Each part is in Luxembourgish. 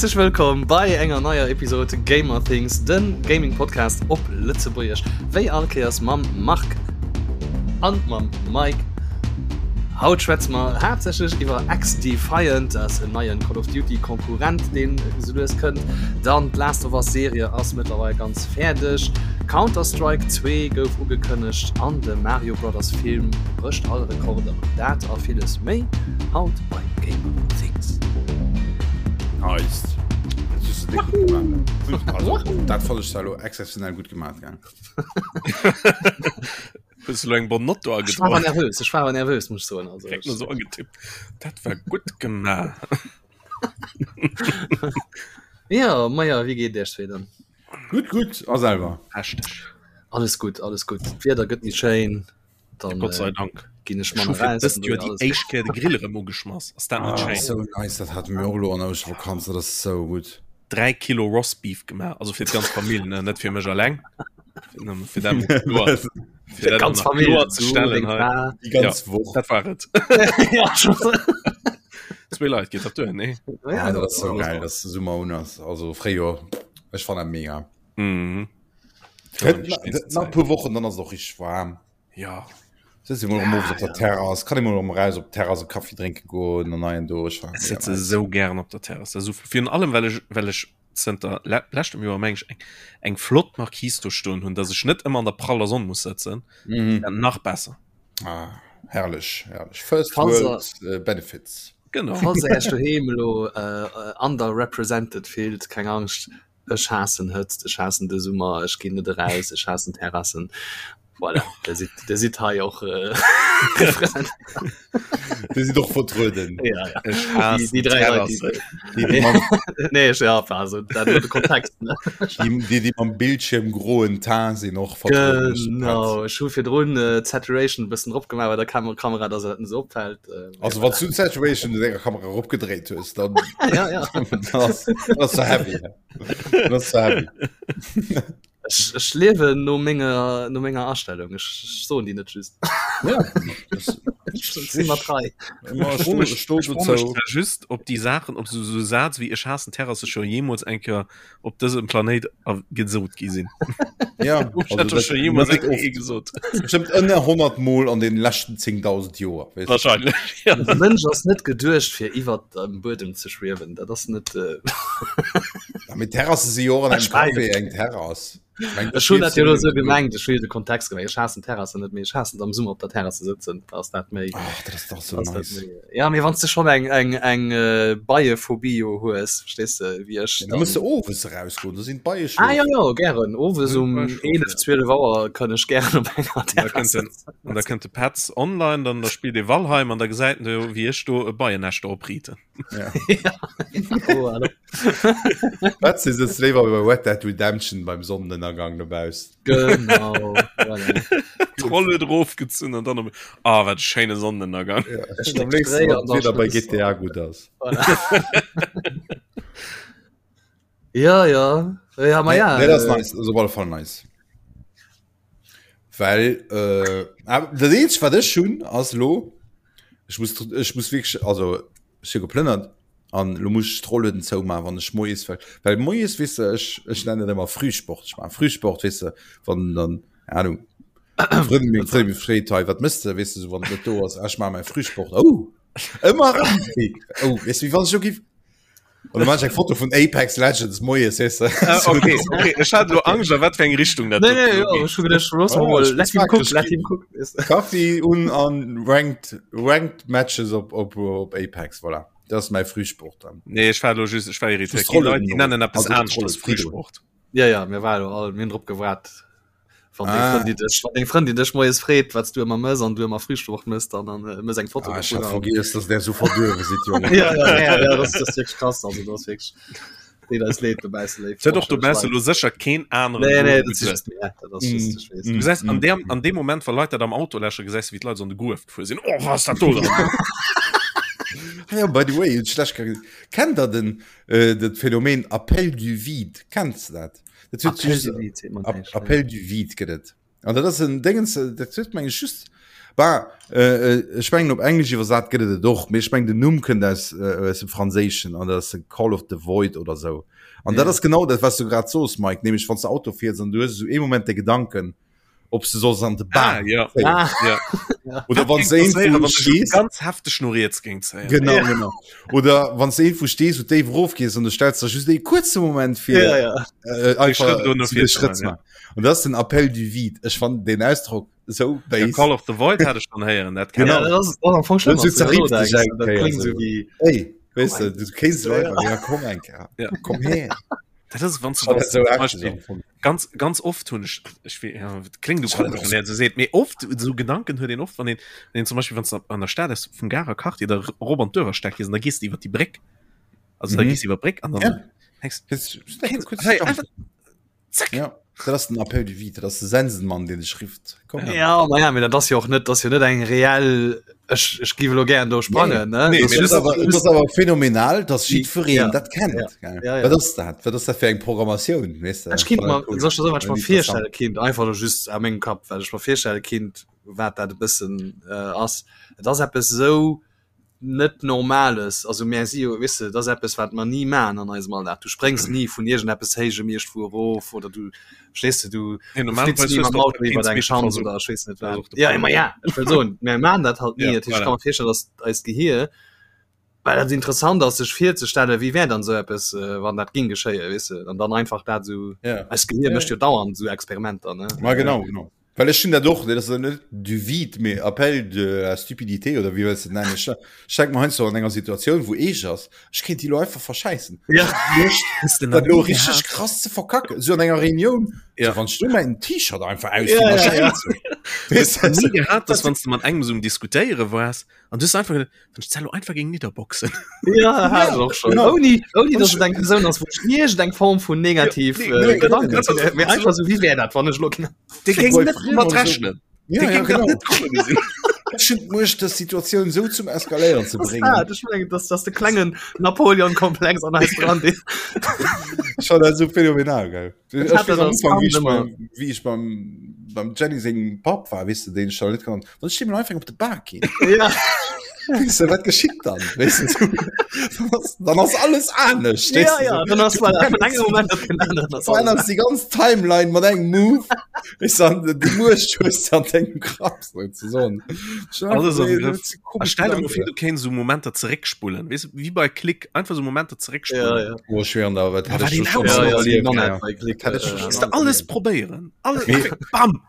Häerzlech wëllkomm bei enger neier Episode Gamer Things, den Gaming Podcast op Lëtzebuergesch. Wéi all Kéiers mam Marc an mam Mike. Haut schwätze mer haaptsächlech iwwer XDefiant, dat ass en neien Call of Duty Konkurrent, deen esou lues kënnt. Dann d'Last of Us Serie ass mëttlerweil ganz fäerdeg. Counter-Strike 2 gouf ugekënnegt an de Mario Brothers Film brécht all Rekorder. Dat a villes méi haut bei Gamer Things. Nice. Dat hues de déck gutt gemaach. Also, dat fand ech zwar elo exzeptionell gutt gemaach, gell? Hues du lo eng Bonne Note do Ech war awer nervös, ech war awer nervös, muss ech soen. Also, Direkt so angetippt. Dat war gutt gemaach. Ja, maja, wéi geet Iech dann? Gutt, gutt. A selwer? Hashtag. Alles gutt, alles gutt. D'Wieder gëtt méi schéin. Dann, Gott sei Dank. Ginn ech Ech hu manner fir raus. dëst Joer déi éischt Kéier de Grill erëm ugeschmass. Ass dat net Ah, schéin? so nice, dat hate mir och elo an der Ouschtervakanz, dat ass sou gutt. 3 Kilo Roastbeef gemaach, also fir d'ganz Famill, ne, net fir mech alleng. Fir dat mol kloer, fir dat Ganz nach Famill, kloer ze du, stellen deng hei. Fra. Déi ganz Woch. Dat war et. Ja, schon. Zwee Leit geet dat duer, nee? Ja, Ah, dat ass sou geil, dass de Summer un ass. Also Fréijoer, ech fannen dat mega. Mhm. Gëtt na- gëtt nach e puer Wochen, dann ass et och richteg waarm. Ja. Sëtz ee mol erëm owes op der Terrass, kann ee mol erëm eraus op d'Terrass e Kaffi drénke goen an hei an do. Ech fannen Ech dat mega sëtze nice. sou gären op der Terrass. Dat ass sou, virun allem well ech, well ech zënter le leschtem Joer meng ech eng, eng flott Marquise do stoen hunn, dass ech net ëmmer an der praller Sonn muss sëtzen. Mhm. Dat nach besser. Ah, herrlech, herrlech. First Falls World äh, Benefits. Genau. Falls der Iech doheem elo äh, underrepresented fillt, keng Angscht, Ech haassen Hëtzt, ech haassen de Summer, ech ginn net eraus, ech haassen Terrassen. Voilà, der sidd, der sidd hei och äh, repräsentiert. Dir sidd och vertrueden. Ja, ja. Ech Déi, haassen déi dräi Leit, Terrassen. déi, Déi, déi mam, nee, ech, ja, also, dat nur de Kontext, ne? déi, déi, déi mam Bildschirm groen Teint sinn och vertrueden. Genau, ech hu virdrun äh, d'Saturation e bëssen drop gemaach bei der Kam Kamera, dass et net esou opfällt. Äh, Also wann du Saturation de denger Kamera eropgedréit hues, dann ja, ja. das, das so heavy. Das so heavy. Ech, ech liewen no menger, no menger Astellung. Ech, ech soen déi net just. Ja, das, Ech sinn mat rei. Immer Ech froe mech, sto, ech froe mech zwar just, ob déi Saachen, ob sou, sou Saz wéi ech haassen Terrasse scho jeemools eng Kéier op dësem Planéit gesot gi sinn. Ja, gesot. Bestimmt ënner 100 Mol an den leschten 10.000 Joer. Wahrscheinlich. Ja. De Mënsch ass net geduecht fir iwwer dem Buedem ze schwiewen. Dat ass net. Äh... Ja, mit Terrasse si jo an engem Café eng Terrass. Ech hunn dat jo elo sou gemengt, ech hu jo de Kontext gemengt. Ech haassen Terrassen net, mee ech haassen et am Summer op der Terrass ze sëtzen. Da ass dat méi. Ach, dat ass dach sou ass dat nice. méi. Ja, mee wann s de schonn eng, eng, eng Beiephobie jo hues, verstees de, wéi ech, Da muss de owes erausgoen, do sinn d'Beie Ah jo, schlofen. jo, gären. Owes um D'Beie schlofen, 11, 12 Auer kënn ech gären op enger An da Terrass kënnt den, sëtzen. an da kënnt de Petz online, dann da spillt ee Valheim an da gesäit en do, wéi ech do e Beiennäscht opriiten. Ja. Ja, oh, hallo. Wat si sëtzt léiwer bei Red Dead Redemption beim Sonnenënnergang dobaussen. Genau, voilà. D'Rolle drofgezunn an dann op Ah, wat e schéine Sonnenënnergang. Ja, Ech am léifsten, dréi wann an dann d'Wieder bei schnëss. GTA gutt ass. Voilà. Ja, ja. Ja, ma Nee, ja. nee, dat ass Äh, nice, ass op alle Fall nice. Well äh, dat eenzegt wat ech hunn ass lo ech muss ech muss wierklech also ech hu geplënnert an lo muss ech d'Rollueden zoumaachen wann ech moies well well moies weess de ech ech nennen dat ëmmer Frühsport ech maache Frühsport weess de wann dann keine Ahnung Frëndin meng Frëndin mech freet hei wat mëss de weess de sou wann et net do ass ah ech maache mäi Frühsport oh ëmmer erëm oh weess de wéi wann ech lo giff Oder mach eng Foto vun Apex Legends moies weess de. Ah, okay, okay. Ech hat lo Angscht, a wat fir eng Richtung dat Nee, nee, ja, ech hu gedacht, los Oh, mal, ich let him mag cook, das let Spiel. him cook. Weißt du. Kaffi un an ranked ranked Matches op op op Apex voilà. Dat ass mäi Frühsport dann. Nee, ech war lo just, ech war irritéiert. Just Déi Leit, déi Rollen nennen eppes also anescht als Rollen, Frühsport. Ja, ja, mir war lo all, mir hunn drop gewaart. Wann deng Ah. Frëndin dech, wann deng Frëndin dech moies freet, wat s du ëmmer mëss an du ëmmer Frühsport mëss, dann dann äh, mëss eng Foto Ah, ech hat dovun. vergiess, dass der so verduerwe sidd, Jongen. Ja, ja, ja, ja, das, das ist wirklich krass, also das ist wirklich, deet eis leed dobausse, léif Et huet och dobausse Leit. lo sécher keen aneren Nee, nee, do das ist geduet. just mir, dat ass just, ech weess. Du gesäis an deem, an deem Moment, wa Leit dat am Auto läschen, gesäis du, wéi d'Leit so an de Gruef gefuer sinn. Oh, was ass dat do dann? Ah ja, by the way, hunn ech lech grad gesot. Kennt der den, äh, dat Phänomen Appel du vide? Kenns de dat? Dat huet Appel just du vide, seet mer näischt, nee. Appel du vide gëtt et. An dat ass en Dingens, dat huet meng ech just. Bah, äh, ech mengen op Englesch iwwersat gëtt et et och, mee ech mengen den Numm kënnt aus, äh, aus dem Franséischen an dat ass de Call of the Void oder sou. An dat ass genau dat, wat s du grad soos, Mike, nämlech wann s de Auto fiers an du hues esou ee Moment de Gedanken, ob s de solls an de Bam ah, ja. ah. Ja. Oder wann s de irgendwo stees. Ganz hefteg no riets géing zéien. Genau, ja. genau. Oder wann s de irgendwo stees, wou déif erofgees an du stells der just ee kuerze Moment fir ja, ja. Äh, einfach de Schrëtt ze maachen. An dat ass den Appel du vide. Ech fannen den Ausdrock sou ja, Call of the Void hat ech schon héieren dat genau. ja, das ist am Anfang schlimm, so denkst, das klingt so wie hey, weißt du, du kennst ja, ja. ja, komm eng ja. komm her dat ist wann du so ganz ganz oft hun ich, ich ja, klingt du so seht mir oft so Gedanken hört den oft wann den, den zum Beispiel wenn an der Stadt ist vum Garer Quartier der Robert Dörer steck da gehst du iwwer die Bréck also mhm. da gehst iwwer Bréck an dann ja. denkst, hey, einfach, Zack. Ja, dat ass den Appel du vide, dat ass de Sensenmann, deen dech rifft. Komm her. Ja, ma ja, mee dat ass jo och net, dat ass jo net eng reell, ech, ech giff elo gären do sprangen, ne? Nee, Dat mee ass dat ass awer, dat ass awer phänomenal, dass jiddwereen Ja. dat kennt. Ja. Gell? Ja, ja. Wat ass dat? Wat ass dat fir eng Programmatioun, weess de? Ech kinnt mer, Cool. soll ech der soen, wat ech mer Interessant. virstelle kinnt, einfach elo just a mengem Kapp, wat ech mer virstelle kinnt, wat dat e bëssen ass. Et ass eppes esou net Normales, also mär si jo, weess de, dat ass eppes wat mer ni maachen an eisem Alldag, du spréngs ni vun iergendeppes Héijem iergendwou erof oder du, verstees de, du Nee, du normalerweis flitz ni hues mam du och Auto iwwer keens eng Meter Schanz Versuch. oder ech weess net Dat ass wat. och de Ja, Punkt. ma ja, ech wëll soen, mär maachen dat halt ni, Ja, dat heescht, ech voilà. ka mer virstellen, datt eist Gehier, well dat interessant ass sech virzestellen, wéi wär dann esou eppes, wann dat géing geschéien, weess de, an dann einfach dat esou, Ja. eist Gehier Ja, mécht jo dauernd esou Experimenter, ne. Ma genau, genau. Well ech hunn dat och, dat ass net du vide, mee Appel de la stupidité oder wéi wëlls de et nennen. Ech ech denke mer heiansdo an enger Situatioun, wou eescht ass, ech kéint déi elo einfach verschäissen. Ja. Loscht, Hues de nach dat elo ni richteg gehat? krass ze verkacken, esou an enger Reunioun, Ja. so wann ech do mäin T-Shirt einfach Ja, ausdinn, ja, da ja. schäiss ech. Hues Weess de de? ni gehat, dass wann s de mat engem esou um Diskutéiere waars an du hues einfach geduet, wann ech d'Zello einfach géing nidderboxen. Ja, hat ech och schon. Genau. Ouni, ouni Wann dass ech- et eng Persoun ass, wou ech iergend eng Form vun negativ Ja, äh, nee, nee, Gedanken nee, zu mee einfach so, wéi wär dat, wann ech elo Dee Fir géing bei net Friem mat oder so. rechnen. Ja, Dee ja, géing dat genau. net komme gesinn. Ech hunn d'Muecht, dës Situatioun esou zum Eskaléieren ze Das bréngen. dat, ech mengen, dass dass de klengen Napoleon-Komplex an eis dran dee Ech fand dat esou phänomenal, gell. Ech Ech hat weess dat am als Ufank, wéi Kand ech ëmmer. beim, wéi ech beim, beim Jenny sengem Papp war, weess de, deen ech da net kannt, wann ech deem einfach op de Bak ginn. Ja. Weess de, wat geschitt dann? Weess de, so, dann ass, dann ass alles anescht, weess Ja, de, ja, so. dann ass Du voilà, vun verännerst engem Moment op den aneren ass alles verännerst déi ganz Timeline mat engem Move. Weess de, an déi Muecht hues de an dengem Grapp, sozesoen. Alles am Grëff. Griff. A stell dir mol vir, du kéints esou Momenter zeréckspullen, weess de, wéi bei Klick, einfach esou Momenter zeréckspullen. Ja, ja. Oh, ech schwéieren der, wat Ja, hätt wat ech een do schon Ja, alles ja, erlieft, non ja. net bei Klick. Hätt ech äh, schon Kannst du alles alles erlieft. probéieren. Alles, Mee- einfach, bam!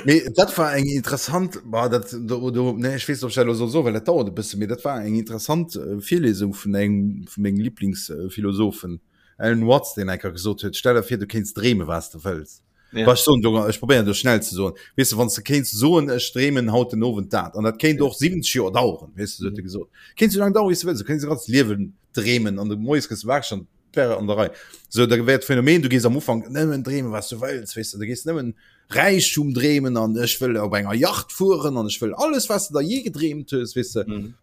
Mee dat war eng interessant bah, dat, do, do, nee, ech weess net, ob ech dat elo soll soen, well dat dauert e bësse, mee dat war eng interessant äh, Virlesung vun engem vu menge Lieblingsphilosophen, Alan Watts, deen eng Kéier gesot huet, stell der vir, du kéints dreeme wat s de wëlls. Ja. Wa ech soen, do, ech probéieren do schnell ze soen, weess de, wann s de kéints soen, ech dreemen haut den Owend dat, an dat kéint och 70 Joer daueren, weess de, sou huet e gesot, kéint sou laang daueren, wéi s de wëlls, du kéints e ganzt Liewen dreemen an de moies gëss de wakereg an et wär an der Rei. Sou, da wär d'Phänomen, du gees am Ufank nëmmen dreemen, wat s du wëlls, weess de, du gees nëmmen Räichtum dreemen an ech wëll op enger Yacht fueren an ech wëll alles, wat s de der jee gedreemt hues, weess de, Mhm.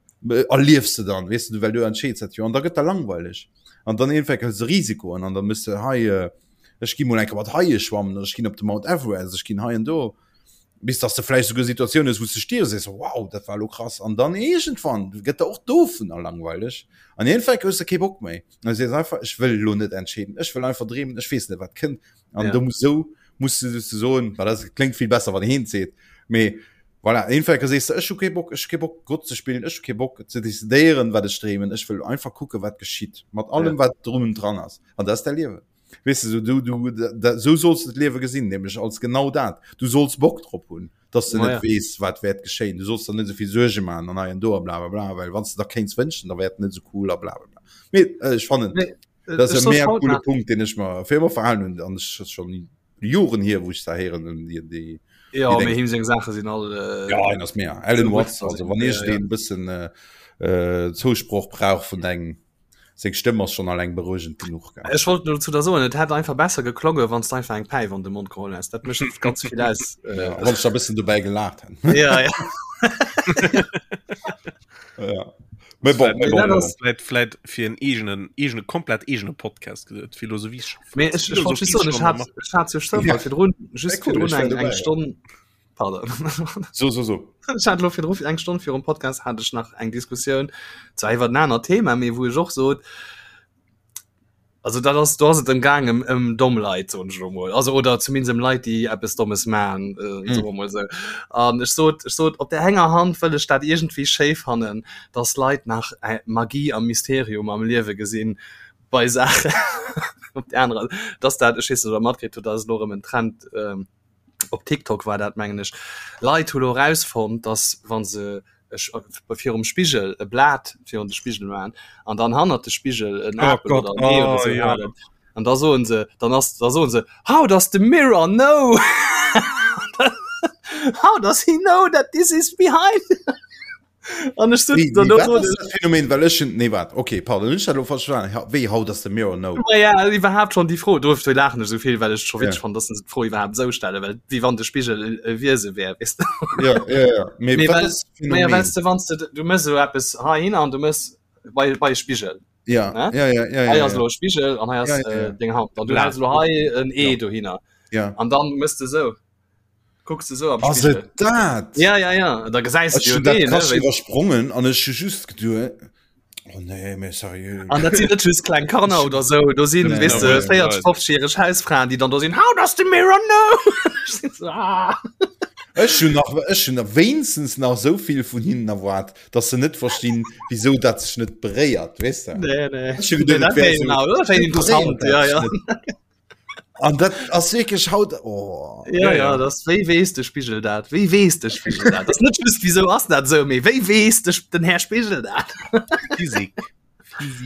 erliefs de dann, weess de, well du entscheeds dat jo an da gëtt der langweileg an dann iergendwann hëls de Risikoen an da mëss de hei, äh, ech gi mol eng Kéier mat Haie schwammen oder ech ginn op de Mount Everest, ech ginn hei an do, bis dass de vläicht souguer Situatiounen hues, wou s de stierfs, sees, wow, dat war elo krass an dann iergendwann gëtt der och dovunner langweileg an iergendwann hues de kee Bock méi an du sees einfach, ech wëll elo net entscheeden, ech wëll einfach dreemen, ech weess net wat kënnt an Ja. do muss sou muss du soen, well dat kléngt vill besser, wann heen seet, mee voilà, iergendwann sees de, ech hu kee Bock, ech hu kee Bock Gott ze spillen, ech hu kee Bock ze decidéieren, wat ech dreemen, ech wëll einfach kucken, wat geschitt, mat allem Ja. wat drum und dran ass an dat ass däi Liewen. Weess de, so, du, du, da, so solls du d'Liewe gesinn, nämlech als genau dat. Du solls Bock drop hunn, dass du Ma net ja. weess, wat wäert geschéien. Du solls der net esou vill Suerge maachen an hei an do a bla bla bla, well wann s de der kéints wënschen, da wär et net esou cool a bla bla bla. Mee äh, ech fannen, Nee, dat ass ech e soss mega haut coole nach- Punkt, deen ech mer fir ëmmer verhalen hunn an ech ass schon Joren hier, wou ech da héieren hunn, déi, déi, Ja, déi mee Deng. him seng Saache sinn all äh, Ja, en ass mega. Alan so Watts, gutt, also wann ja, ech ja. deen bëssen äh, äh, Zousproch brauch vun engem Seng Stëmm ass schon alleng beruegend genuch. Gell? Ech wollt nur dazu da soen, et hätt einfach besser geklonge, wann du einfach eng Päif an de Mond geholl häss. Dat mécht ganz vill aus. Ja, Äh, wann ech da bëssen dobäi gelaacht hätt. ja, ja. Ja. Mee bon, mee Mee bon, dat bon. ass- Vläit, vläit fir en eegenen, eegene, komplett eegene Podcast geduet. Philosophie. Mee ech, ech wollt just soen, ech hat, ech hat zu Zoufall Ja. virdrun, just Ja, cool, virdrun ech wär eng, dobäi, eng ja. Stonn. Pardon. So, so, so. Ech hat lo virdru eng Stonn virum Podcast hat ech nach eng Diskussioun zwar iwwer en anert Thema, mee wou ech och sot, also dat ass do ass et ëm gaang ëm ëm domm Leit soen ech elo mol, also oder zumindest ëm Leit déi eppes Dommes man, äh, mm. soe mer mol esou. An ech sot ech sot op der enger Hand wëll ech dat iergendwéi schéi fannen, dass Leit nach äh, Magie a Mysterium am Liewe gesinn bei Saachen op der anerer dass dat ech weess net ob der matkritt hutt, dat ass elo erëm en Trend ähm, op TikTok war dat mengen ech, Leit hu lo erausfonnt, dass wa se virum Spigel e Blat virun de Spigel maachen an dann hannert de Spigel en oh Apel Gott, oder en Ee oder oh, sou ja. halen an da soen se dann ass da soen se how does the mirror know how does he know that this is behind An ech Wéi, wéi, wat ass dat Phänomen, well ech hun, nee wat, okay, pardon, hunn ech dat elo falsch verstanen, Ha- wéi how does the mirror know? Ma ja, iwwerhaapt schon déi Fro, dofir laachen ech esou vill, well ech scho witzeg Ja. fannen, dass se d'Fro iwwerhaapt esou stellen, well wéi wann de Spigel e, e Wiese wär, weess de. Ja, ja, ja. Mee Mee wat well, ass das ma ja, Phänomen? wells de, wanns de, du mëss esou eppes heihinner an du mëss bei, bei e Spigel, Ja, ne? ja, ja, ja, Hei ja, ass ja. elo e Spigel an hei ass Ja, ja, äh, ja. deng Hand. An du Blat. häls elo hei en Ee Ja. dohinner. Ja. An dann mëss de esou. Kucks de sou am Ass Spigel. et dat? Ja, ja, ja. Da gesäis Ech du jo hunn dat deen, ne? krass Wéi- iwwersprongen an ech hu just geduet, oh nee, mee seriö. An dat sinn net just kleng Kanner oder sou. Do sinn, Nee, weess de, nee, 40, 50-jähreg Hausfraen, déi dann do sinn, How does the mirror know? Ech sinn so, ah. Ech hunn nach, ech hunn nach wéinstens nach esou vill vun hinnen erwaart, dass se net verstinn, wisou dat sech net beréiert, weess de? Nee, nee. Ech hu geduet, Nee, et dat wär wär esou, genau, dat wär interessant, beréiert ja, dat ja. sech net. An dat ass wierklech haut oh. Ja, ja, ja. das wéi wees de Spigel dat? Wéi wees de Spigel dat? Das net just wieso ass dat so méi wéi wees de den Herr Spigel dat? Physik.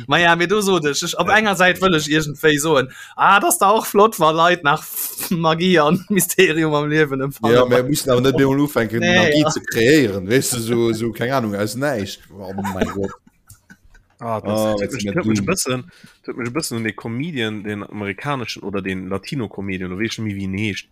Ma ja mir du so ech ech op enger Säit wëll ech iergendwéi soen ah das da och flott war Leit nach Magie an Mysterium am Liewen empfangen. Ja, mir müssen awer net bemol ufänken Nee, Magie ja. ze kreéieren, weess du so so keng Ahnung aus näischt. Oh mein Gott. Ah, das, Ah, das jetzt huet sind mich, wir huet mich dumm. bëssen, huet mech e bëssen un de Comedian, den amerikaneschen oder den Latino-Comedian, oder weess ech net méi wéi en heescht.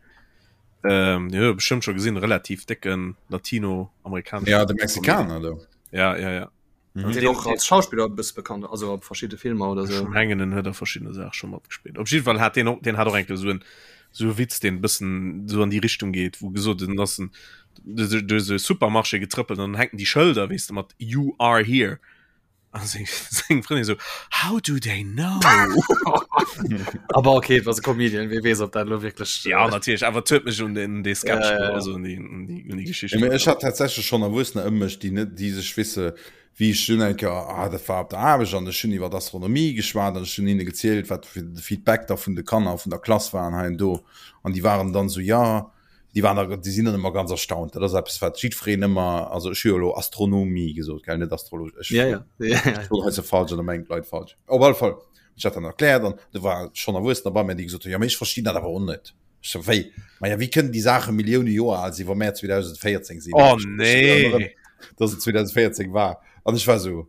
Ähm, den huet der bestëmmt scho gesinn, relativ décken Latino-amerikaneschen Ja, de Mexikaner do. Ja, ja, ja. Mhm. Den och als Schauspiller e bësse bekannt, also op verschidde Filmer oder Ech sou. mengen en huet a verschiddene Saache scho matgespillt. Op jidde Fall hat deen och, deen hat och eng Kéier esou en esou e Witz, deen e bëssen esou an déi Richtung geet, wou gesot en ass en duerch duerch esou e Supermarché getrëppelt an dann hänken déi Schëlder, weess de, mat You are here. An seng seng Frëndin esou, How do they know? Aber okay, et ass e Comedian, wie weess, ob dat elo wierklech. Ja, natierlech, awer et huet mech un den dee Sketch, Ja, ja, ja. also un déi un déi un déi Geschicht Ja, mee ech hat tatsächlech schonn Erwuessener ëm mech, déi net, déi sech wisse wéi ech dunn eng Kéier, ah dat war op der Aarbecht an ech hunn iwwer Astronomie geschwat an ech hunn hinne gezielt, wat fir de Feedback da vun de Kanner vun der Klass waren hei an do an déi waren dann esou, ja, déi waren da, déi sinn dann ëmmer ganz erstaunt. Dat ass eppes, wat jiddwereen ëmmer, also ech hu jo elo Astronomie gesot, gell, net Astrologie. Ech Ja, ja. Ja, ja. ech soen hei se falsch an da mengen d'Leit falsch. Op alle Fall, ech hat dann erkläert an do war schonn Erwuessener bei mir, déi gesot hunn, jo mee ech verstinn dat awer och net. Ech so, wéi? Ma ja, wéi kënnen déi Saache Millioune Joer al sinn, wa mär 2014 sinn? Oh Ech- ech nee. erënnere, Dass et 2014 war. An ech war so,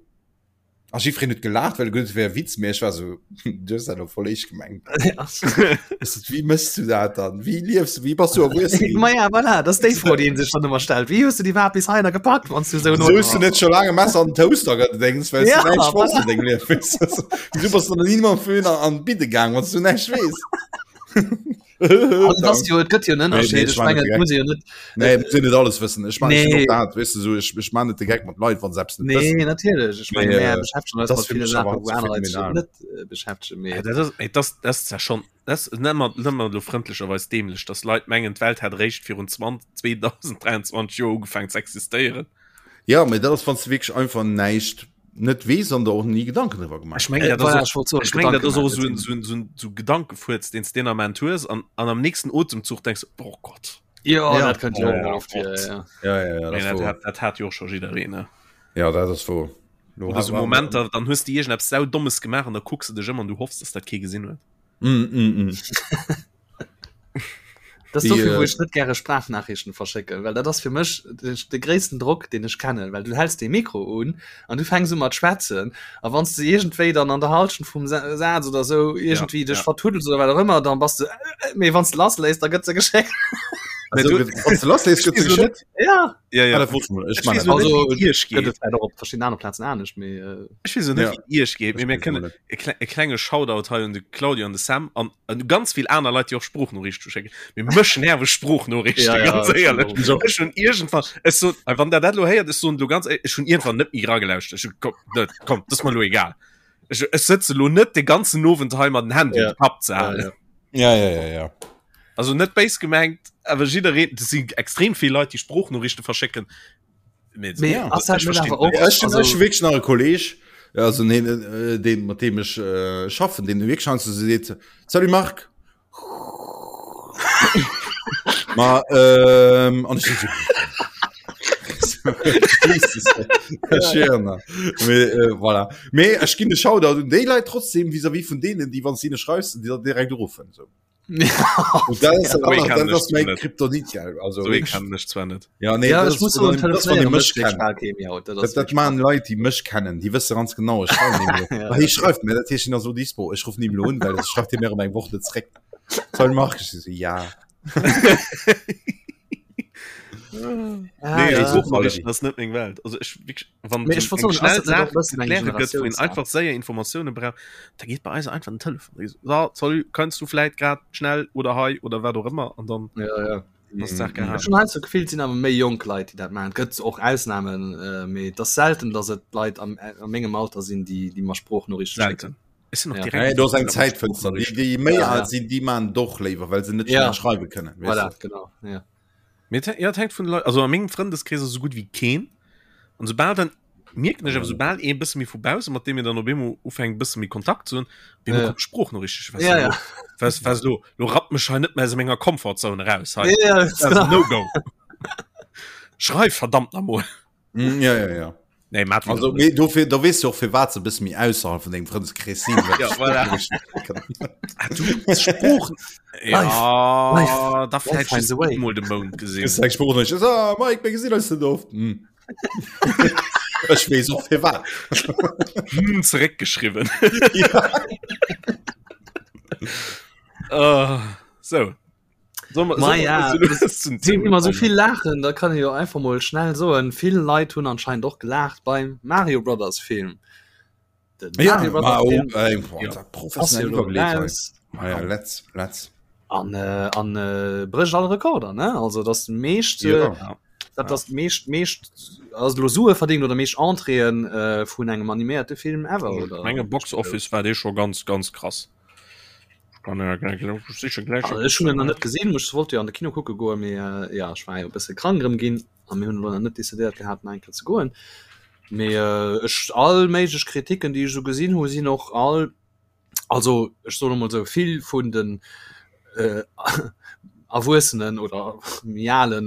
a jiddwereen huet gelaacht, well e geduet huet, et wär e Witz, mee ech war so, du hues dat elo voll eescht gemengt. Ech so, wéi méchs du dat dann? Wéi liefs du? Wéi bass du erwuessen ginn? Ma ja, voilà, dat ass déi Fro, déi een sech dann ëmmer stellt. Wéi hues du déi iwwerhaapt bis heihinner gepackt, wann s du esou no. Wéisou hues du net scho laang e Messer an den Toaster gedéngs, well s du Ja, näischt wosst voilà. an dengem Liewen? Wéisou bass du dann ni mam Föhn an an d'Bidde gaang, wann s du näischt weess? Also, das jo, et gëtt jo en Nee, nee, Ënnerscheed. ech Ech man net mengen, de et Geck. muss ee jo net. Nee, muss een net alles wëssen. Ech man Nee. och dat, weess du, so, ech, ech man net de Geck mat Leit, wann se eppes net Nee, wëssen. natierlech. Ech menge Mee, mär äh, beschäftegen eis das mat fir ville mech Saachen, awer wou zu aner Leit sech phänomenal. net äh, beschäftegen. Mee Ja, dat ass, ey, das, das ist ja schon, das nennt man, nennt man lo frëndlecherweis dämlech, dass Leit mengen, d'Welt hätt eréischt virun 20, 2023 Joer ugefaangen ze existéieren. Ja, mee dat ass, wann s du wierklech einfach näischt net weess an der och ni Gedanken driwwer gemaach Ech mengen, Äh, dat ass voilà, och, ech wollt soen, ech mengen, dat Gedanken ass och maachen, esou en, esou en, esou en, esou Gedankefuerz, deen s deen Ament hues an, an am nächsten Otemzuch denks du, oh Gott. Jo, Ja. dat kënnt jo Oh och mol oft vir, Gott. ja. Ja, ja, ja, dat Mee ass dat wouer. hat, dat hat jo och scho jiddereen, ne? Ja, dat ass wouer. Lo Oder hat esou man- Momenter, dann hues de iergendeppes Saudommes gemaach an da kucks de dech ëm an du hoffs, dass dat kee gesinn huet. Mm, mm, mm. Das Déi, dofir, wou äh, ech net gäre Sprachnachrichten verschécken, well dat ass fir mech de, de gréissten Drock, deen ech kennen, well du häls dee Mikro un an du fänks u mat schwätzen a wann s de iergendwéi dann an der Halschent vum Sa Saz oder sou iergendwéi dech ja. vertuddels oder wat och ëmmer, dann bass de äh, äh, mee wann s de lassléiss, da gëtt se geschéckt. Ja ja, ja. Ah, dat wosst ech mol. Ech Ech man weess dat. och net, Also, wéi et iech gëtt geet. et vläicht och op verschiddenen anere Plazen anescht, mee äh, Ech weess och net, Ja. wéi et iech geet, mee Ech mir weess kënnen och net. e kle e klenge Shoutout hei un de Claudio an de Sam an an ganz vill aner Leit, déi och Sproochnoriichte schécken. Mee mech nerve Sproochnoriichte, Ja, ja, ganz ech éierlech. och. So. Ech hunn iergendwann, ech sot, wann der dat elo héiert, ech soen elo ganz éierlech, ech hunn iergendwann net méi eragelauschtert. Ech hu, komm, net, komm, dat ass mer elo egal. Ech, ech sëtze elo net de ganzen Owend hei mat den Handy Ja. um Kapp ze Ja, halen. ja. Ja, ja, ja, ja. Also net béis gemengt, awer jiddereen, dat si extrem vill Leit, déi Sproochnoriichte verschécken. Mee, Mee Ja. ass dat ech net verstinn awer och, Ja, ech hunn also, ech hu wierklech nach e Kolleg, also neen, äh, deen, mat deem ech äh, schaffen, deen wierklech heiansdo sou seet, Salut Marc. Ma ähm, an ech sou, Mee, äh, voilà. Mee ech ginn de Shoutout un déi Leit trotzdem vis-à-vis vun deenen, déi wann s de hinne schreifs, déi dann direkt uruffen. So. Und das ist, So ee das, kennen das ech ist mein net. Kryptonit, ja. Also, So ee kennen ech zwar net. ja, nee, ja, das ech muss ist, soen, wann, das, wann die telefonéiere mech mécht wierklech kennen. bal kee méi haut. Dat ass Dat, dat wierklech machen Leit, déi mech kennen, déi wësse ganz genau, ech schreiwen ihm lo. Ja. Ah, hie schreift mir, dat heescht, hien ass so dispo. Ech ruffen ihm lo un, well das schreift hie mir ëm eng Woch net zréck. Soll Marc? Ich so, ja. Ah, Nee, ja. Sprachnachrichten ass net meng Welt. Also ech wierklech, wann Mee so ech wollt eng soen, ass schnell dat net och Saach e bëssen eng ze kläre gëtt, wou een Generatiounssaach? einfach séier Informatioune brauch, da geet bei eis einfach den Telefon. Da geet so, salut, kënns du vläit grad schnell oder hei oder wat och ëmmer an dann Ja, ja. ass d'Saach Ech gehaangen. hunn heiansdo d'Gefill, et sinn awer méi jonk Leit, déi dat maachen. Et gëtt och Ausnamen, äh, mee et ass selten, datt et Leit am, a mengem Alter sinn, déi, déi mer Sproochnoriichte schécken. Selten. Ech sinn och Ja. direkt Nee, do ass eng mat Zäitfënster. Déi, Sproochnoriichten. déi méi Ja, ja. al sinn, déi man doch léiwer, well se net Ja. schnell schreiwe kënnen. Weißt Voilà, du? genau. Ja. Mee et, ja, et hänkt vun de Leit, also a mengem Frëndeskrees ass esou gutt wéi keen. An soubal dann mierken ech awer, soubal ee bësse méi vu bausse, mat deem een dann op eemol ufänkt bësse méi Kontakt ze hunn, op eemol Ja. kommt Sproochnoriichten. Ech weess Ja, lo, ja. was, was lo, lo rappt mech hei net méi aus menger Komfortzone raus hei. Ja, ja, Das ass genau. no go. Schreif verdammt nach mol. Mm, ja, ja, ja. Nee, mat Also, mee dofir, da weess du och, firwat se e bësse méi ausserhalb vun dengem Frëndeskrees sinn. well Ja, se voilà. Sproochnoriichten kënnen. Ah, du Sprooch Life, Ja, da life vläicht finds just a way. eemol de Mount gesinn. Kriss eng Sproochnoriicht. Ah, Mike, mir gesinn eis net oft. Hm. Ech weess och firwat. Hm, zeréckgeschriwwen. Ja. Uh, so. Ma ja, sinn immer so vill laachen, da kann ee jo einfach mol schnell soen, vill Leit hunn anscheinend och gelaacht beim Mario Brothers Film. Den Ja, Mario ma Brothers oh, Film ey, boah, Ja. da ass professionell jo elo iwwergeleet hei. raus Ah ja, let's, let's. an äh, an äh, brécht all Rekorder, ne? Also das meescht äh, Ja. dat ass meescht meescht also lo Sue verdingt oder meescht Entréeën äh, vun engem animéierte Film ever oder? Menge Box Office war dee scho ganz ganz krass. Ech hunn en nach net gesinn, ech wollt jo an de Kino kucke goen, mee ja ech war jo e bësse krank erëm ginn a mir hunn elo nach net decidéiert gehat nach eng Kéier ze goen. Mee ech all méiglech Kritiken déi ech esou gesinn hu sinn och all, also ech soen emol esou, vill vun den Erwuessenen oder méi alen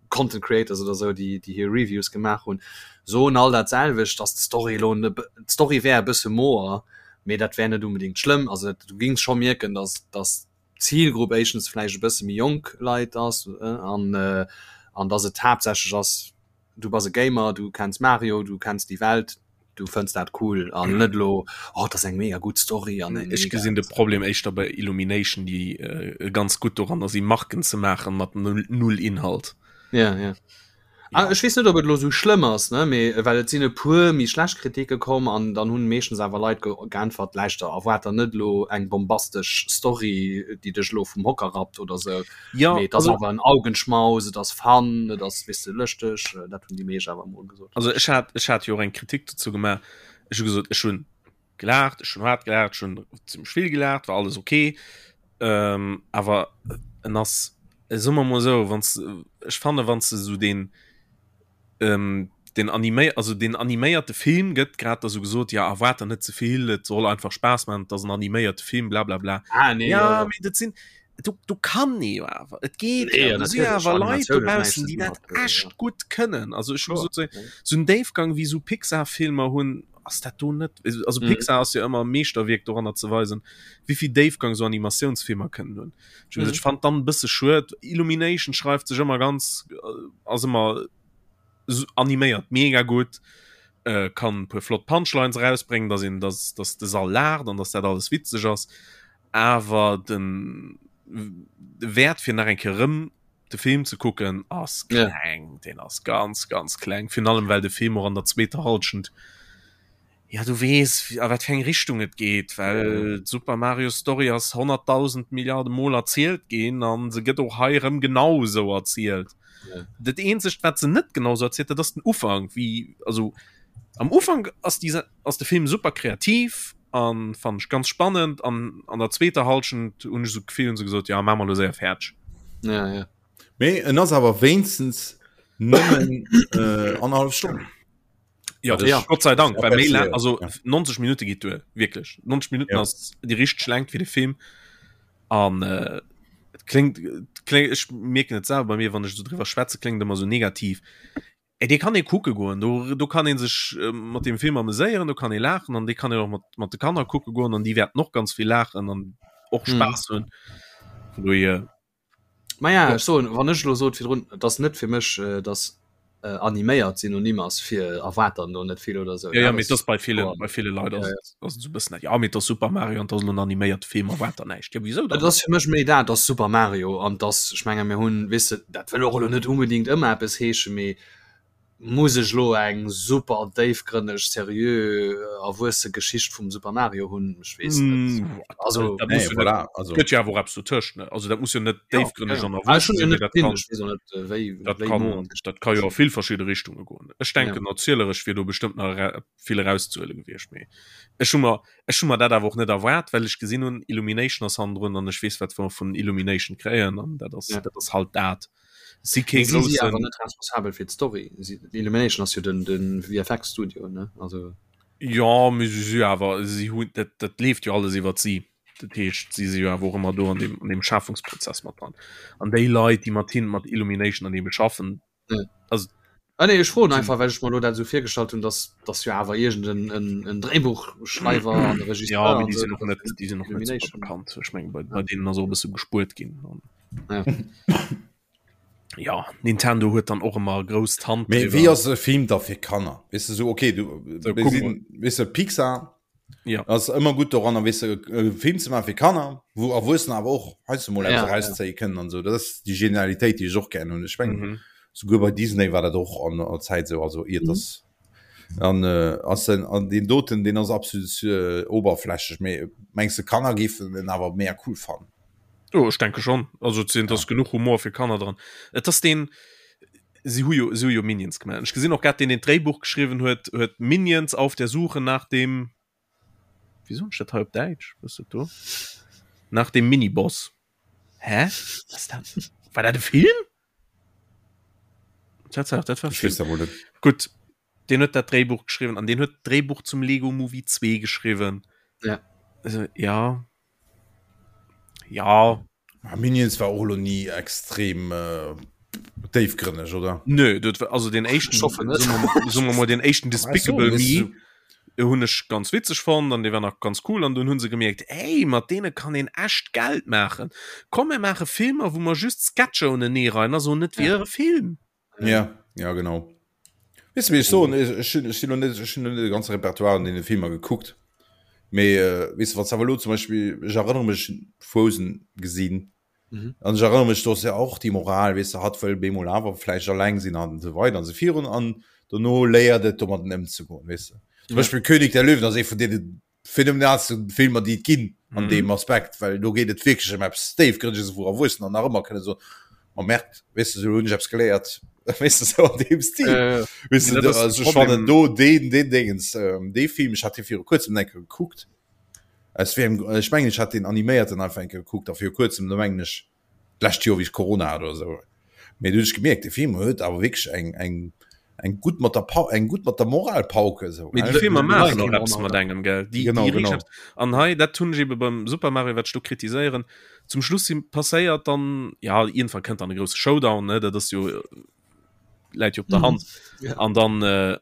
Content Creators oder esou déi déi hir Reviews gemaach hunn, soen all dat selwecht, datt d'Story elo d'Story wär e bësse moer mee dat wär net unbedingt schlëmm. Also dat, du gings scho mierken, dass, dass d'Zilgrupp éischtens vläicht e bësse méi jonk Leit ass an, an dass et haaptsächlech ass, du bass e Gamer, du kenns Mario, du kenns déi Welt, du fënns dat cool an net elo, oh, dat ass eng mega gutt Story an eng Ech mega. gesinn de Problem éischter bei Illumination, déi ganz gutt doranner si Marken ze maachen mat null Inhalt. Ja, ja. Ah, ech weess net, ob et elo sou schlëmm ass, ne, mee well et sinn e puer méi schlecht Kritike komm an dann hunn meeschtens awer Leit ge geäntwert, Läischter, erwaart der net elo eng bombastesch Story, déi dech elo vum Hocker rappt oder sou, Ja, mee et ass also, awer en Augenschmaus, et ass fun, et ass, weess de, lëschteg, dat hunn déi meescht awer emol gesot. also ech hat, ech hat jo och eng Kritik dozou gemaach. Ech hu gesot, ech hunn gelaacht, ech hunn haart gelaacht, ech hunn zimmlech vill gelaacht, war alles okay. Ähm, awer en ass, soe mer mol esou, wann s, ech fanne wann s de esou deen, ähm, den animé also den animéierte Film gëtt grad da sou gesot, ja erwaart der net ze vill, et soll einfach Spaass maachen, et ass en animéierte Film, blablabla. Ah, nee, ja, Ja, ja. mee dat sinn, do, do kann ee jo awer, et geet Nee, jo, do si natierlech, awer Leit Animatioun huet näischt dobaussen, ze déi dinn dat mat, äh, echt ja. gutt kënnen. Also ech hu Kloer, gesot, sou ja. sou en Déifgang wéi sou Pixar-Filmer hunn, ass dat do net, also Mhm. Pixar ass jo ëmmer e Meeschterwierk doranner ze weisen, wéi vill Déifgang sou Animatiounsfilmer kënnen hunn. Ech hu gesot, Mhm. ech fand dann e bësse schued, Illumination schreift sech ëmmer ganz, ass ëmmer animéiert mega gutt, äh, kann e puer flott Punchlines erausbréngen, dass een, dass, dass de Sall laacht an dass dat alles witzeg ass, awer den. De Wäert fir nach eng Kéier erëm de Film ze kucken ass kleng, ja. Den ass ganz ganz kleng, virun allem well de Film och an der zweeter Halschent ja du weess a wat fir eng Richtung et geet, well d'Super Mario Story ass 100.000 Milliarde Mol erzielt ginn an se gëtt och hei erëm genau esou erzielt. Ja. Dat eenzegt wat se net genau sou erzielt, dat ass den Ufank, wéi also am Ufank ass déi ass de Film super kreativ an fand ech ganz spannend an an der zweeter Halschent hunn ech sou d'Gefill hunn se gesot ja maache mer elo séier fäerdeg. Ja, ja. Mee en ass awer wéinstens nëmmen äh, annerhallef Stonn. Ja, das ja. Gott sei Dank, Ja, well méi besser, lang, also ja. 90 Minute geet duer, wierklech. 90 Minuten Ja. ass déi richteg Längt fir de Film an äh, et kléngt, et kléngt, ech mierken et selwer bei mir, wann ech esou driwwer schwätze, kléngt ëmmer sou negativ. Ey, dee kann ee kucke goen, do, do kann ee sech äh, mat dem Film ameséieren, do kann ee laachen an dee kann een och mat, mat de Kanner kucke goen an déi wäerten och ganz vill laachen an och Mhm. Spaass hunn. Vun dohier, Ma ja, ech soen, wann ech elo sot virdrun, et ass net fir mech, äh, dass äh, animéiert Synonym ass fir erwaart dann do net vill oder sou. Ja, ja, dat mee ass et ass bei villen, kloer. bei ville Leit Ja, ass ja. et, ass et sou e bëssen dat, ja, mee et ass Super Mario an et ass elo en animéierte Film, erwaart der näischt. Ja, wisou Et dann? ass fir mech méi dat, ass Super Mario an dass, ech menge mir hunn, weess de, dat wëll och elo net unbedingt ëmmer eppes heeschen, mee muss ech elo eng super déifgrënneg, seriö, erwuesse Geschicht vum Super Mario hunn? Ech weess net. Mm, Also, dat Nee, muss jo net, voilà, also gëtt jo awer och eppes dotëscht, ne? Also dat muss jo net ja, déifgrënneg ja. an Ah, ech erwuessen hunn jo sinn, mee net dat gesinn, kann, ech weess och net, äh, wéi, dat wéi kann, no an d'Geschicht dat ka jo a vill verschidde Richtunge goen. Ech Ja. denken, erzieleresch wier do bestëmmt nach era vill erauszehuele gewiescht, mee ech hu mer, ech hu mer dat awer och net erwaart, well ech gesinn hunn, Illumination ass hannendrun an ech weess, wat mer vun Illumination kréien an dat ass, Ja. dat ass halt dat. Si kee Mee si si awer groussen. net responsabel fir d'Story. Si, Illumination ass jo den, den VFX Studio, ne? Also. Jo, mee si si awer, si hunn, dat, dat leeft jo alles iwwert si. Dat heescht, si si jo awer och ëmmer do an deem, an deem Schafungsprozess mat dran. An déi Leit, déi mat hinnen, mat Illumination an deem schaffen, Ja. also Ah, nee, ech froen sinn, einfach, well ech mer elo dat esou virgestallt hunn, dass, dass jo awer iergend en, en, en Dréibuchschreiwer an e ja, Regisseur mee an déi esou, sinn och dass net, dat déi sinn och net super Illumination. bekannt. Ech mengen, bei, Ja. bei deenen ass och e bësse gespuert ginn. An Ja. ja, Nintendo huet dann och ëmmer grouss d'Hand Mee wéi driwwer. ass e Film da fir Kanner? Weess de, sou okay, du, So, mir kuck mol. sinn, weess de, Pixar Ja. ass ëmmer gutt doranner, weess de, e Film ze maache fir Kanner, wou Erwuessener awer och heiansdo mol eppes Ja, ja. erauszéie kënnen an esou. Dat ass déi Genialitéit, déi ech och gären hunn. Ech mengen, Mhm. souguer bei Disney war dat och an der Zäit esou, also iert Mhm. dass an äh, ass den an deen doten, deen ass absolut äh, oberflächlech. Mee mengs de, Kanner géifen en awer méi cool fannen? Jo, ech denke schon. Also et sinn, et ass Ja. genuch Humor fir Kanner dran. Et ass deen, si hu jo, si hu jo Minions gemaach. Ech gesinn och grad, deen deen d'Dréibuch geschriwwen huet, huet Minions auf der Suche nach dem, wéi soen ech dat hei op Däitsch, was ass dat do? Nach dem Miniboss. Hä? Was ass dat? War dat e Film? Tatsaach, dat war Ech Film. weess dat mol net. Gutt, deen huet dat Dréibuch geschriwwen an deen huet d'Dréibuch zum Lego Movie 2 geschriwwen. Ja. Also, ja. Ja. Ah, Minions war och elo ni extrem äh, déifgrënneg, oder? Nö, dat war, also den éischten, Ich hoffe net. soen mer, soen mer mol, den éischten Despicable Weißt du, Me hunn ech ganz witzeg fonnt an dee war nach ganz cool an dunn hunn se gemierkt, ey, mat deene kann een echt Geld maachen. Komm mir maache Filmer, wou mer just Sketcher uneneereien a soen, et wier e Film. Ja, ja genau. Weess de, wéi ech soen, ech, ech hunn, ech sinn lo net, ech hunn lo net de ganze Repertoire an deene Filmer gekuckt. Mee äh, weess de, wann s awer elo zum Beispill, ech erënnere mech Frozen gesinn, Mhm. an ech erënnere mech, do ass ja och déi Moral, weess de, hatt wëll bemol awer vläicht alleng sinn an esou weider an esou virun an dono léiert et domadden ëmzegoen, weess de. Zum Ja. Beispill König der Löwen ass ee vun deene phänomenalsten Filmer déi et ginn an Mhm. deem Aspekt, well do geet et wierklech ëm eppes Déifgrënneges, wou Erwuessener nach ëmmer kënne soen, Ma Merd, weess de, esou hunn ech eppes geléiert, weess de, sou an deem Stil. Äh, Weess de, Dat ass also de ech fannen Problem. do deen, deen Dingens, ähm, dee Film, ech hat dee viru kuerzem eng Kéier gekuckt, aus wéi engem, ech mengen ech hat deen animéierten einfach eng Kéier gekuckt a viru kuerzem, do mengen ech d'lescht Joer wéi ech Corona hat oder esou, mee du hunn ech gemierkt, dee Film huet awer wierklech eng, eng, eng gutt mat der Pa eng gutt mat der Moralpauke esou. Mee déi Filmer maachen och eppes mat engem, gell? Déi, Genau, déi genau. riicht eppes. An hei, dat hunn ech ebe beim Super Mario, wat ech do kritiséieren, zum Schluss si passéiert dann, ja, iergendwann kënnt dann e grousse Showdown, ne, dat ass jo, läit jo op der Hand. Ja. An dann, äh,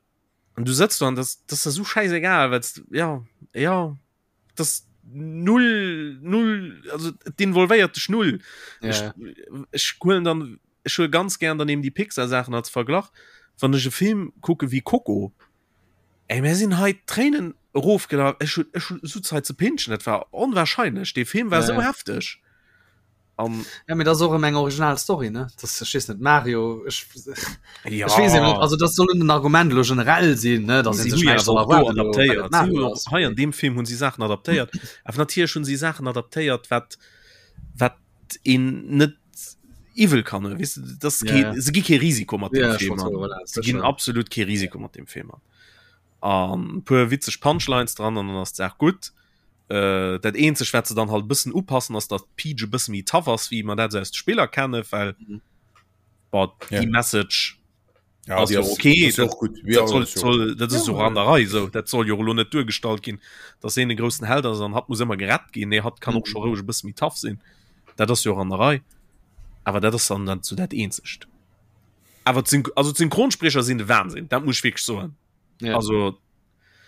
an du sëtz do an das, das ass esou schäisegal, well s, ja, ja. das null null also d'involvéiert dech null ja. ech, ech huelen dann ech huele ganz gern dann eben die Pixar Sachen als Verglach wann ech e Film kucke wie Coco ey mir sinn hei Tréinen erofgelaf ech hun ech hun sou Zait ze pinschen dat war onwahrscheinlech dee Film war Ja, sou ja. hefteg. An ja, mir das och eng original Story ne das ech weess net Mario ech, ja. ech weess net also das soll den Argument lo generell sinn ne dass si sech soll adaptéiert hei an dem Film hunn si Saachen adaptéiert awer natierlech hunn si Saachen adaptéiert wat wat een net iwwel kann weißt du, das ja, ja. se gi kee Risiko mat dem ja, Film so, voilà, se ginn absolut kee Risiko mat dem Film an an puer witzeg Punchlines dran an dann ass d'Saach gutt. Äh, dat eenzeg wat se dann halt bëssen upassen ass dat Peach e bësse méi tough ass wéi mer dat sou aus de Spiller kennen, well mhm. boah, ja. déi Message ja, ass jo okay dat, gut. Ja, dat soll, soll, dat ist ja, so an der Rei so dat soll jo lo net duergestallt ginn, dass een de groussen Held ass an hat muss ëmmer gerett ginn, nee hat kann och mhm. scho roueg e bësse méi tough sinn. Dat ass jo an der Rei. Awer dat ass dann dann zu dat eenzegt. Awer also d'Synchronsprecher sinn de Wahnsinn, dat muss ich wirklich soen. Ja. Also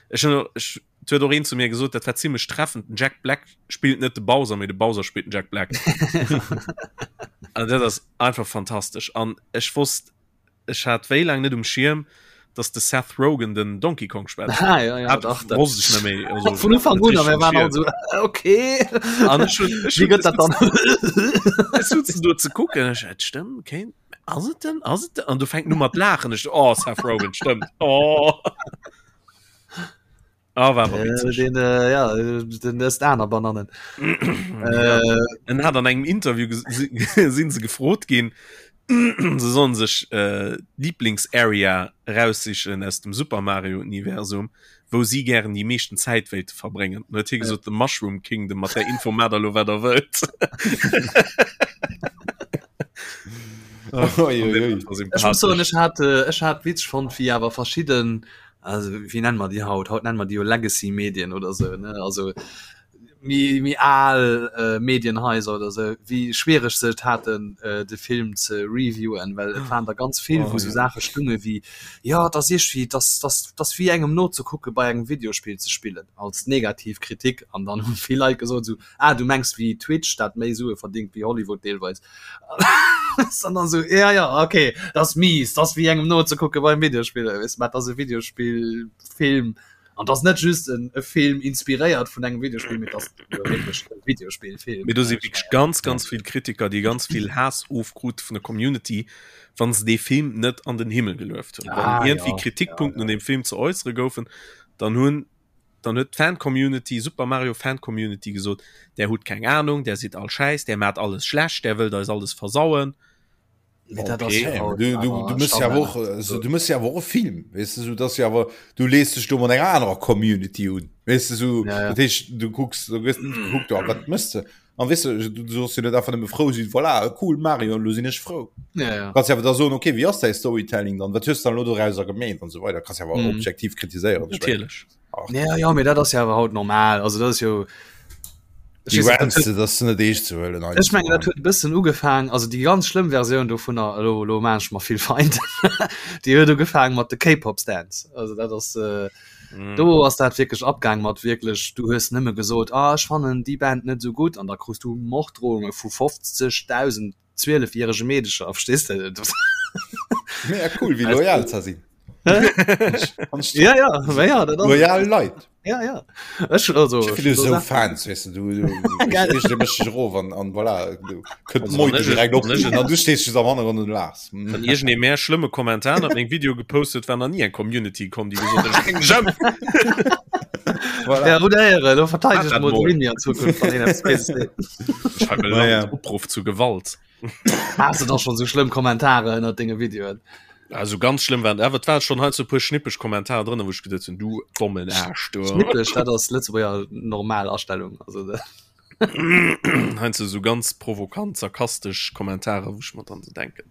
ech hun ech huet och een zu mir gesot, dat war ziemlech treffend, den Jack Black spillt net de Bowser, mee de Bowser spillt den Jack Black. An dat ass einfach fantastesch. An ech wosst ech hat wéi laang net um Schierm, dass de Seth Rogen den Donkey Kong schwätzt. Ah, ja, ja, Hat dach, dat- wosst ech net méi. Also, Vun Ufank un, a mir waren all so okay. An ech hun, ech Wie hun, gëtt dat dann? ech sutzen do ze kucken, ech, et stëmmt, kéint Ass et denn? Ass et denn? An du fängt nu mat laachen. Ech, oh, Seth Rogen, stëmmt. Oh. Ah, war awer Äh, witzeg. den, äh, ja, den ësst aner Banannen. Ja. Äh, En hat an engem Interview ges- si- sinn se gefrot ginn, se sollen sech äh, Lieblingsarea raussichen aus dem Super Mario Universum, wou si gären déi meeschten Zäit wéilte verbréngen. Dann huet hie gesot, The Mushroom Kingdom, mat där Info maacht der lo wat der wëllt. Ech muss soen, ech hat, äh, ech hat witzeg fonnt, wéi awer verschidden, also wéi nennen mer déi haut? Haut nennen mer déi jo Legacy-Medien oder sou, ne? Also méi, méi al äh, Medienhaiser oder sou, wéi schwiereg se et haten, äh, de Film ze reviewen, well et waren der ganz vill, wou sou Saache stunge wéi, jo, et ass iergendwéi, et ass, et ass, et ass wéi engem nozekucke bei engem Videospill ze spillen, als negativ Kritik. An dann hu vill Leit gesot sou, Ah, du mengs wéi Twitch, dat méi Sue verdingt wéi Hollywood deelweis. An dann sou, ja, ja, okay, dat ass mies, dat ass wéi engem nozekucke beim Videospiller, weess de, mä et ass e Videospillfilm an et ass net just en e Film inspiréiert vun engem Videospill, mee et ass jo wierklech e Videospillfilm. Mee do si wierklech ganz, ganz vill Kritiker, déi ganz vill Haass ofkrute vun der Community, wa se dee Film net an den Himmel gelueft hunn. Wann Ah, iergendwéi ja, ja, Kritikpunkten ja. un deem Film ze äussere goufen, dann hunn Dann huet d'Fancommunity, Super Mario Fancommunity gesot, där hutt keng Ahnung, där sidd all schäiss, där maacht alles schlecht, där wëllt eis alles versauen. Mee dat ass Okay. jo haut Du, du, du awer mëss ja Standard. och, also, du mëss ja awer och e Film, weess de, sou dass jo awer, du lees dech do mat enger anerer Community un, weess de, sou, Ja, ja. dat heescht, du kucks, du gëss net gekuckt, oh, wat mëss de? An weess de, du soss jo net einfach nëmme frou sinn, voilà, cool Mario, lo sinn ech frou. Ja, ja. Kanns ja awer da soen, okay, wéi ass däi Storytelling dann, wat hues de dann elo dorauser gemeet an esou weider, kanns ja awer Mhm. objektiv kritiséieren, ech mengen. Natierlech. Ach, Ja, ja, mee dat ass jo awer haut normal, also dat ass jo, ech déi weess net, dat Rants, huet, dat ass net eescht ze huelen ech mengen, dat heiansdo. huet e bëssen ugefaang, also déi ganz schlëmm Versioun dovunner, elo, elo maan ech mer vill Feind, déi huet ugefaang mat de K-Pop Stans, also dat ass, äh, Mm. Do ass dat wierklech abgaang mat wierklech, du hues nëmme gesot, ah ech fannen déi Band net esou gutt an da krus du Morddrohunge vu 50.000 zwielefjärege Meedecher, verstees de? Mega cool, wéi loyal ze sinn. Ja, ja, ma ja, dat ass Loyal Leit. Ja, ja. Ech also Ech vill esou Fans, weess de, du, du, Geil. du méchs dech erof an, an voilà, du kënnt Also, d'Meute wann ech- direkt op wann ech- an du stees just am Hannergrond und laachs. Hm. Wann iergendee mär schlëmme Kommentar ënnert mengem Video gepost huet, war nach ni eng Community komm, déi gesot huet, ech bréng dech ëm. Voilà. Ja, oder Ehre, lo verteideg Hat dat mol mol. de Winnie an Zukunft, wann een eppes Béises seet. Ech schreiwe Ja, ja. Land Opruff zu Gewalt. Has du da schon sou schlëmm Kommentare ënnert denge Videoen? Also ganz schlëmm waren, awer et war schon hei so puer schnippeg Kommentare drënner, wou ech geduet hunn, du dommen Aarsch, du. Schnippeg, dat ass Lëtzebuerger normal Astellung. Also, dat- Heiansdo sou ganz provokant, sarkastesch Kommentare, wou ech mer dann so denken,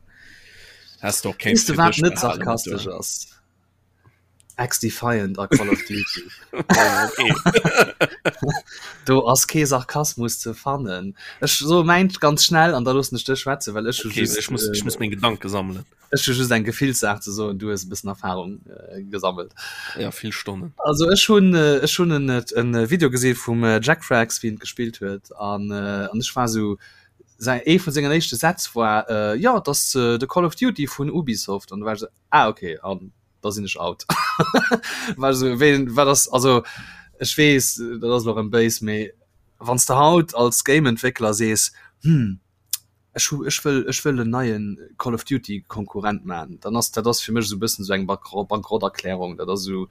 häss de och kéint Weess de fir wat dech net behalen, sarkastesch du. ass? X-Defiant a Call of Duty. Oh, okay. Do ass kee Sarkasmus ze fannen. Ech soe mäint ganz schnell an da loossen ech dech schwätzen, well ech hu Okay, just, ech muss, ech äh, muss meng Gedanke sammelen. ech hu just eng Gefillssaach ze soen, du hues e bëssen Erfahrung äh, gesammelt. Ja, vill Stonnen. Also ech hunn äh, ech hunn en, en Video gesi vum äh, Jack Frags, wéi en gespillt huet an, äh, an ech war sou, säi ee vun sengen éischte Sätz war äh, jo, et ass äh, de Call of Duty vun Ubisoft an du war ech sou, ah okay, an da sinn ech out. War sou, wéi, wat ass, also ech weess, dat ass elo erëm béis, mee wann s de haut als Game-Entwéckler sees, hm. Ech hu ech wëll ech wëll en neien Call of Duty Konkurrent man, dann ass dat ass fir mech esou e bëssen esou eng Bankrotterklärung. Dat ass esou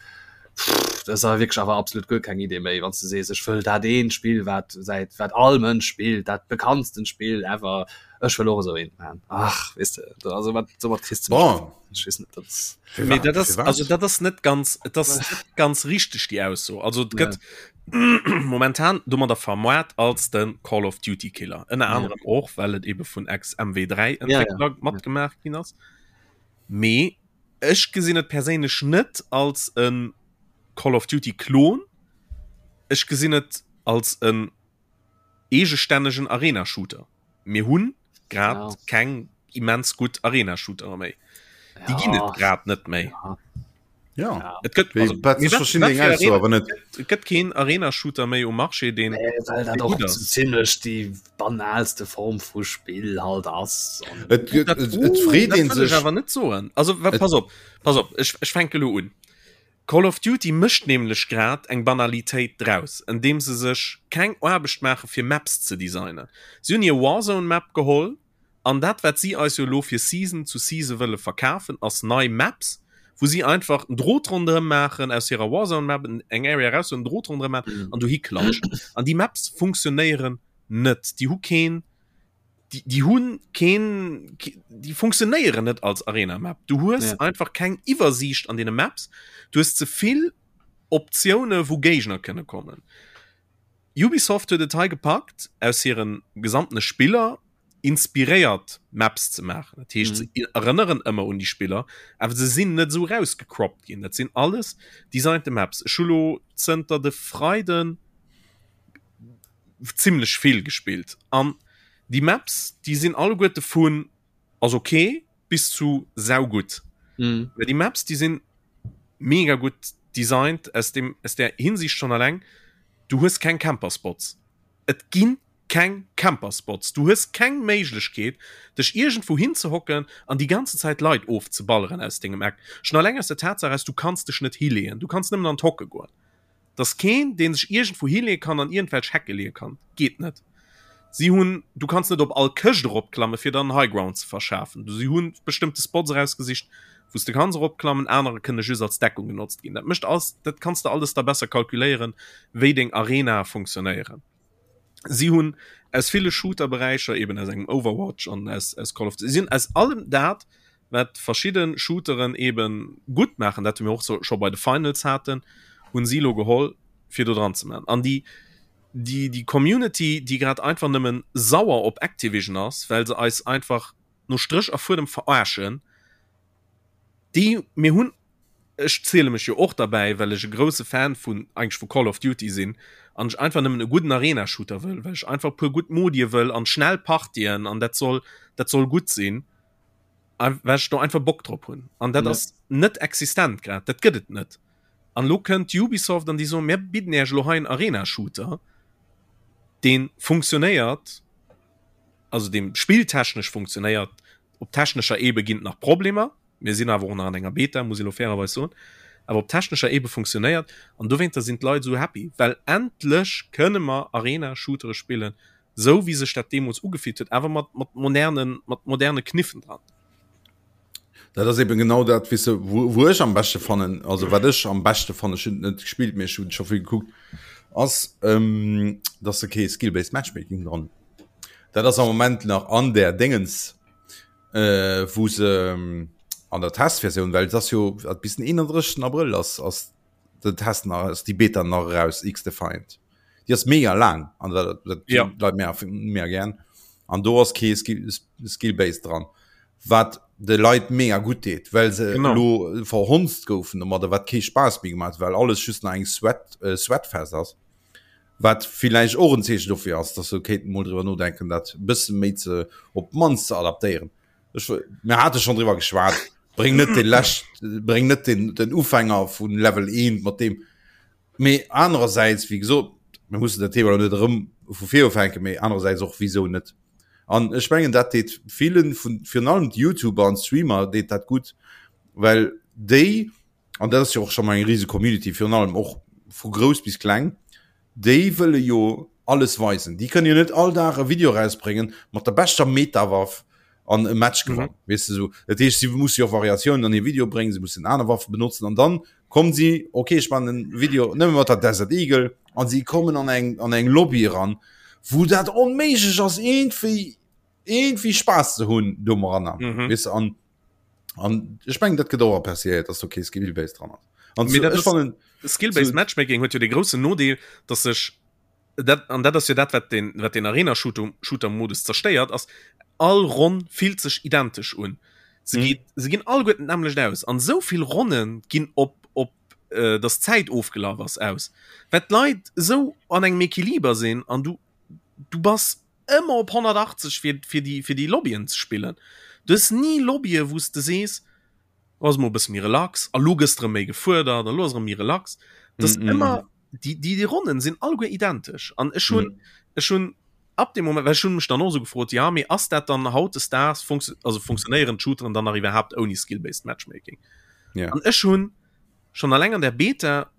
pff, dat ass awer wierklech awer absolut guer keng Idee méi, wann s de sees, ech wëll dat eent Spill wat säit wat all Mënsch spillt, dat bekanntsten Spill ever, ech wëll och esou eent man. Ach weess de, also wat soumat kriss de mech Bon. net. Ech weess net, dat ass. Mee Firwat? dat ass Firwat? also dat ass net ganz et ass net ganz richteg déi Ausso. Also et Ja. gëtt momentan domadder vermoart als de Call of Duty Killer. Ënner Ja. anerem och well et ebe vun ex MW3 Ja, ja. Entwéckler matgemaach ginn ass. Mee ech gesinn et perséinlech net als e Call of Duty Klon. Ech gesinn et als en eegestännegen Arena Shooter. Mir hunn grad Ja. keng immens gutt Arena Shootere méi. Déi ginn et Ja. grad net méi. Ja. Ja. Ja. Et gëtt Wéi, also, wat mee ech wat, verstinn wat deng fir Ausso Arena awer net. et gëtt keen Arena Shooter méi um Marché deen Nee, well dat dee och gutt ass. zimmlech déi banalste Form vu Spill halt ass. An Et, et, Dat, et, et uh, freet dat een wëll ech sech. awer net soen. Also wa, Et, pass op, pass op, ech, ech fänke lo un. Call of Duty mécht nämlech grad eng Banalitéit draus, andeem se sech keng Aarbecht maache fir Maps ze designen. Si hunn hir Warzone Map geholl an dat wat si eis jo elo fir Season zu Season wëlle verkafen ass nei Maps, wou si einfach en Drot ronderëm maachen aus hirer Warzone Map, eng Area eraushuelen, en Drot ronderëm maachen an dohi klatschen. An déi Maps funktionéieren net, déi hu keen déi hunn keen, déi funktionéieren net als Arena Map. Du hues ja. einfach keng Iwwersiicht an deene Maps. Du hues ze vill Optioune wou Géigner kënne kommen. Ubisoft huet et hei gepackt aus hiren gesamtene Spiller inspiréiert Maps ze maachen. Dat heescht, mm. se erënneren ëmmer un déi Spiller, awer se sinn net esou rausgecroppt ginn. Dat sinn alles designte Maps. Ech hu lo zënter de Freiden zimmlech vill gespillt an déi Maps déi sinn alleguerte vun ass ok bis zu saugutt. Mhm. Well déi Maps déi sinn mega gutt designt aus dem aus der Hinsicht schon alleng du hues keng Camperspots. Et ginn keng Camperspots. Du hues keng Méiglechkeet dech iergendwou hinzehocken an déi ganze Zäit Leit ofzeballeren aus dengem Eck. Schon alleng aus der Tatsaach aus du kanns dech net hileeën, du kanns nëmmen an d'Hocke goen. Dass keen, dee sech iergendwou hileeë kann an iergendwelch Hecke leeë kann. Geet net. Si hunn, du kanns net op all Këscht eropklamme fir der en High Ground ze verschafen. Si hu bestëmmte Spots erausgesicht, wou s de kanns eropklammen, anerer kënne just als Deckung genotzt ginn. Dat mécht alles, dat kanns de alles da besser kalkuléieren, wéi deng Arenae funktionéieren. Si hunn aus ville Shooter-Beräicher, eben aus engem Overwatch an aus, aus Call of Duty, si hunn aus allem dat, wat verschidde Shooteren eben gutt maachen, dat mir och so, scho bei de Finals haten, hunn si lo geholl, fir do dran ze maachen. An déi, déi, déi Community, déi grad einfach nëmmen sauer op Activision ass, well se eis einfach no Stréch a Fuedem verarschen, déi, mir hunn ech ziele mech jo och derbäi, well ech e grousse Fan vun eigentlech vu Call of Duty sinn an ech einfach nëmmen e gudden Arena-Shooter wëll, well ech einfach e puer gutt Modie wëll an schnell Partien an dat soll dat soll gutt sinn, well ech do einfach Bock drop hunn. An dat ass net existent grad, dat gëtt et net. An elo kënnt Ubisoft an déi soen, mir bidden Iech elo hei en Arena-Shooter, dee funktionéiert, also dee spilltechnesch funktionéiert, op technescher Ebe ginn et nach Problemer, Mir sinn awer och nach an enger Beta, muss ee lo fairerweis soen. Awer op technescher Ebe funktionéiert an dowéinter sinn d'Leit esou happy, well endlech kënne mer Arena-Shootere spillen, esou wéi sech dat deemools ugefillt huet, awer mat, mat modernen, mat moderne Kniffen dran. Dat ass eben genau dat, weess de, wou, wou ech am beschte fannen, also wat ech am beschte fannen, ech hunn et net gespillt, mee ech hunn scho vill gekuckt, ass, ähm, dass se kee Skill-based Matchmaking dran hunn. Dat ass am Moment nach an där Déngens. äh, wou se ähm, an der Testversioun, well das jo bis den 31. April ass ass den Test nach ass die Beta nach raus X Defiant. Di ass mega lang an dat, dat ja. Leit mehr, mehr gern. An do ass kee Skill, Skill Base dran. Wat de Leit mega gut deet, well se genau. lo verhonzt goufen, domadder wat kee Spaß méi gemacht, well alles just nach eng Sweat, äh, Sweatfest ass. Wat villäicht och en Zeechen dofir ass, dass se kéinten mol driwwer nodenken, dat e bësse méi ze, op d'mannst ze adaptéieren. Ech, mir hate schonn driwwer geschwat, bréng net de lescht, bréng net den, den Ufänger vun Level 1 mat deem. Mee anerersäits, wéi gesot, mir mussen dat Thema elo net erëm vu vir ufänken, mee anerersäits och, wisou net? An ech mengen, dat deet villen vun, virun allem d'Youtuber an d'Streamer deet dat gutt, well déi, an dat ass jo och scho mol eng rise Community, virun allem och vu grouss bis kleng, déi wëlle jo Alles weisen. Déi kënnen jo net all Dag e Video rausbréngen mat der beschter Meta-Waff an e Match mhm. gewannen. Weess de sou. Dat heescht, si musse jo Variatiounen an hir Video bréngen, se mussen aner Waffe benotzen an dann kommen si, okay, ech man en Video nëmme mat der Desert Eagle an si kommen an eng an eng Lobby eran, wou dat onméiglech ass iergendwéi iergendwéi Spaass ze hunn doranner. Mhm. Weess de an an ech mengen dat gëtt och appréciéiert, dass do kee Skill-Based dran ass. An zu, ech fannen Skill-Based Matchmaking huet jo de groussen Nodeel, dass sech dat an dat ass jo dat wat den wat den Arena Shooter Shooter Modus zerstéiert ass all Ronn fillt sech identesch un se mhm. geht se ginn all guet nämlech aus an sou vill Ronnen ginn op op äh, das Zäit ofgelaf ass aus wat Leit sou an engem Equiliber sinn an du du bass ëmmer op 180 fir fir die fir die Lobbyen ze spillen du hues nie Lobbye wous de sees ass mo bësse méi relax a lo gëss de erëm méi gefuerdert a lo ass erëm méi relax das mm -hmm. ëmmer die die die Ronnen sinn alleguer identesch an ech hunn mm. ech hunn ab dem Moment well ech hunn mech dann och so gefrot ja mee ass dat dann hautdesdaags funktio also funktionéieren d'Shooteren dann nach iwwerhaapt ouni skill-based Matchmaking ja. an ech hunn schon alleng an der Beta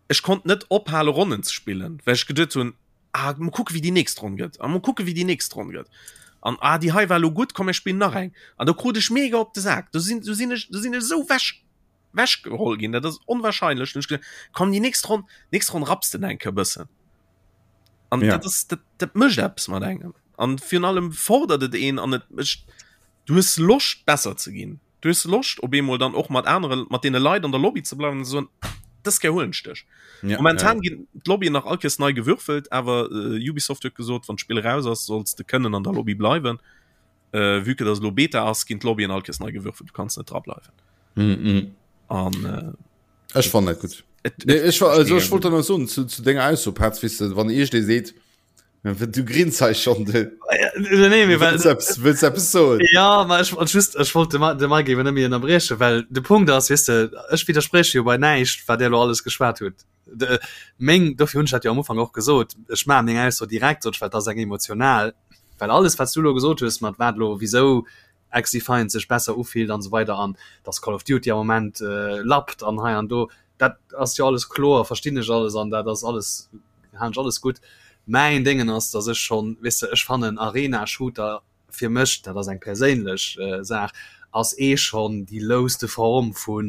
Ech konnt net ophale Ronnen ze spillen, well ech geduet hunn, ah mol kucke wéi déi nächst Ronn gëtt a mol kucke wéi déi nächst Ronn gëtt an ah déi hei war elo gutt, komm mir spillen nach eng an do krut ech mega op de Sak. Do sinn do sinn ech do sinn ech esou wech wech geholl ginn, dat ass onwahrscheinlech. Dann hunn ech gesot, komm déi nächst Ronn nächst Ronn rapps de eng Kéier e bëssen an Ja. dat ass dat dat mécht eppes mat engem an virun allem fordert et een an et mécht du hues Loscht besser ze ginn. Du hues Loscht op eemol dann och mat anere mat deene Leit an der Lobby ze bleiwen an ze soen, dës Kéier huelen ech dech. Ja, Momentan ja. ginn d'Lobbyen nach all Kéiers nei gewürfelt, awer äh, Ubisoft huet gesot, wann d'Spill raus ass, solls de kënnen an der Lobby bleiwen. Äh, vue que dass elo Beta ass, ginn d'Lobbyen all Kéiers nei gewürfelt, du kanns net dra bleiwen. Mm -mm. An äh, Ech fand dat gut. et, Nee, et, ech war, also mega ech wollt gut. dann so zu, zu denger Ausso Petz, weißt du, wann iergend ee seet, Du grins hei schon de. Nee, mir Wëlls eppes, wëlls eppes soen? Ja, ma ech wollt just ech wollt de Ma de Mike eben net méi ënnerbriechen, well de Punkt ass, weess de, ech widdersprieche jo bei näischt, wat där elo alles geschwat huet. De meng, dofir hunn ech dat jo am Ufank och gesot, ech maachen meng Ausso direkt, sot ech, well dat ass eng emotional, well alles, wat s du elo gesot hues, mat wat elo wisou XDefiant sech besser ufillt an esou weider an dass Call of Duty am Moment lappt an hei an do, dat ass jo alles kloer, verstinn ech alles an dat ass alles halen ech alles gutt. Mäin Déngen ass, dass ech schonn, weess de, ech fannen Arena-Shooter fir mech, dat ass eng perséinlech Saach, ass ee schonn déi louste Form vu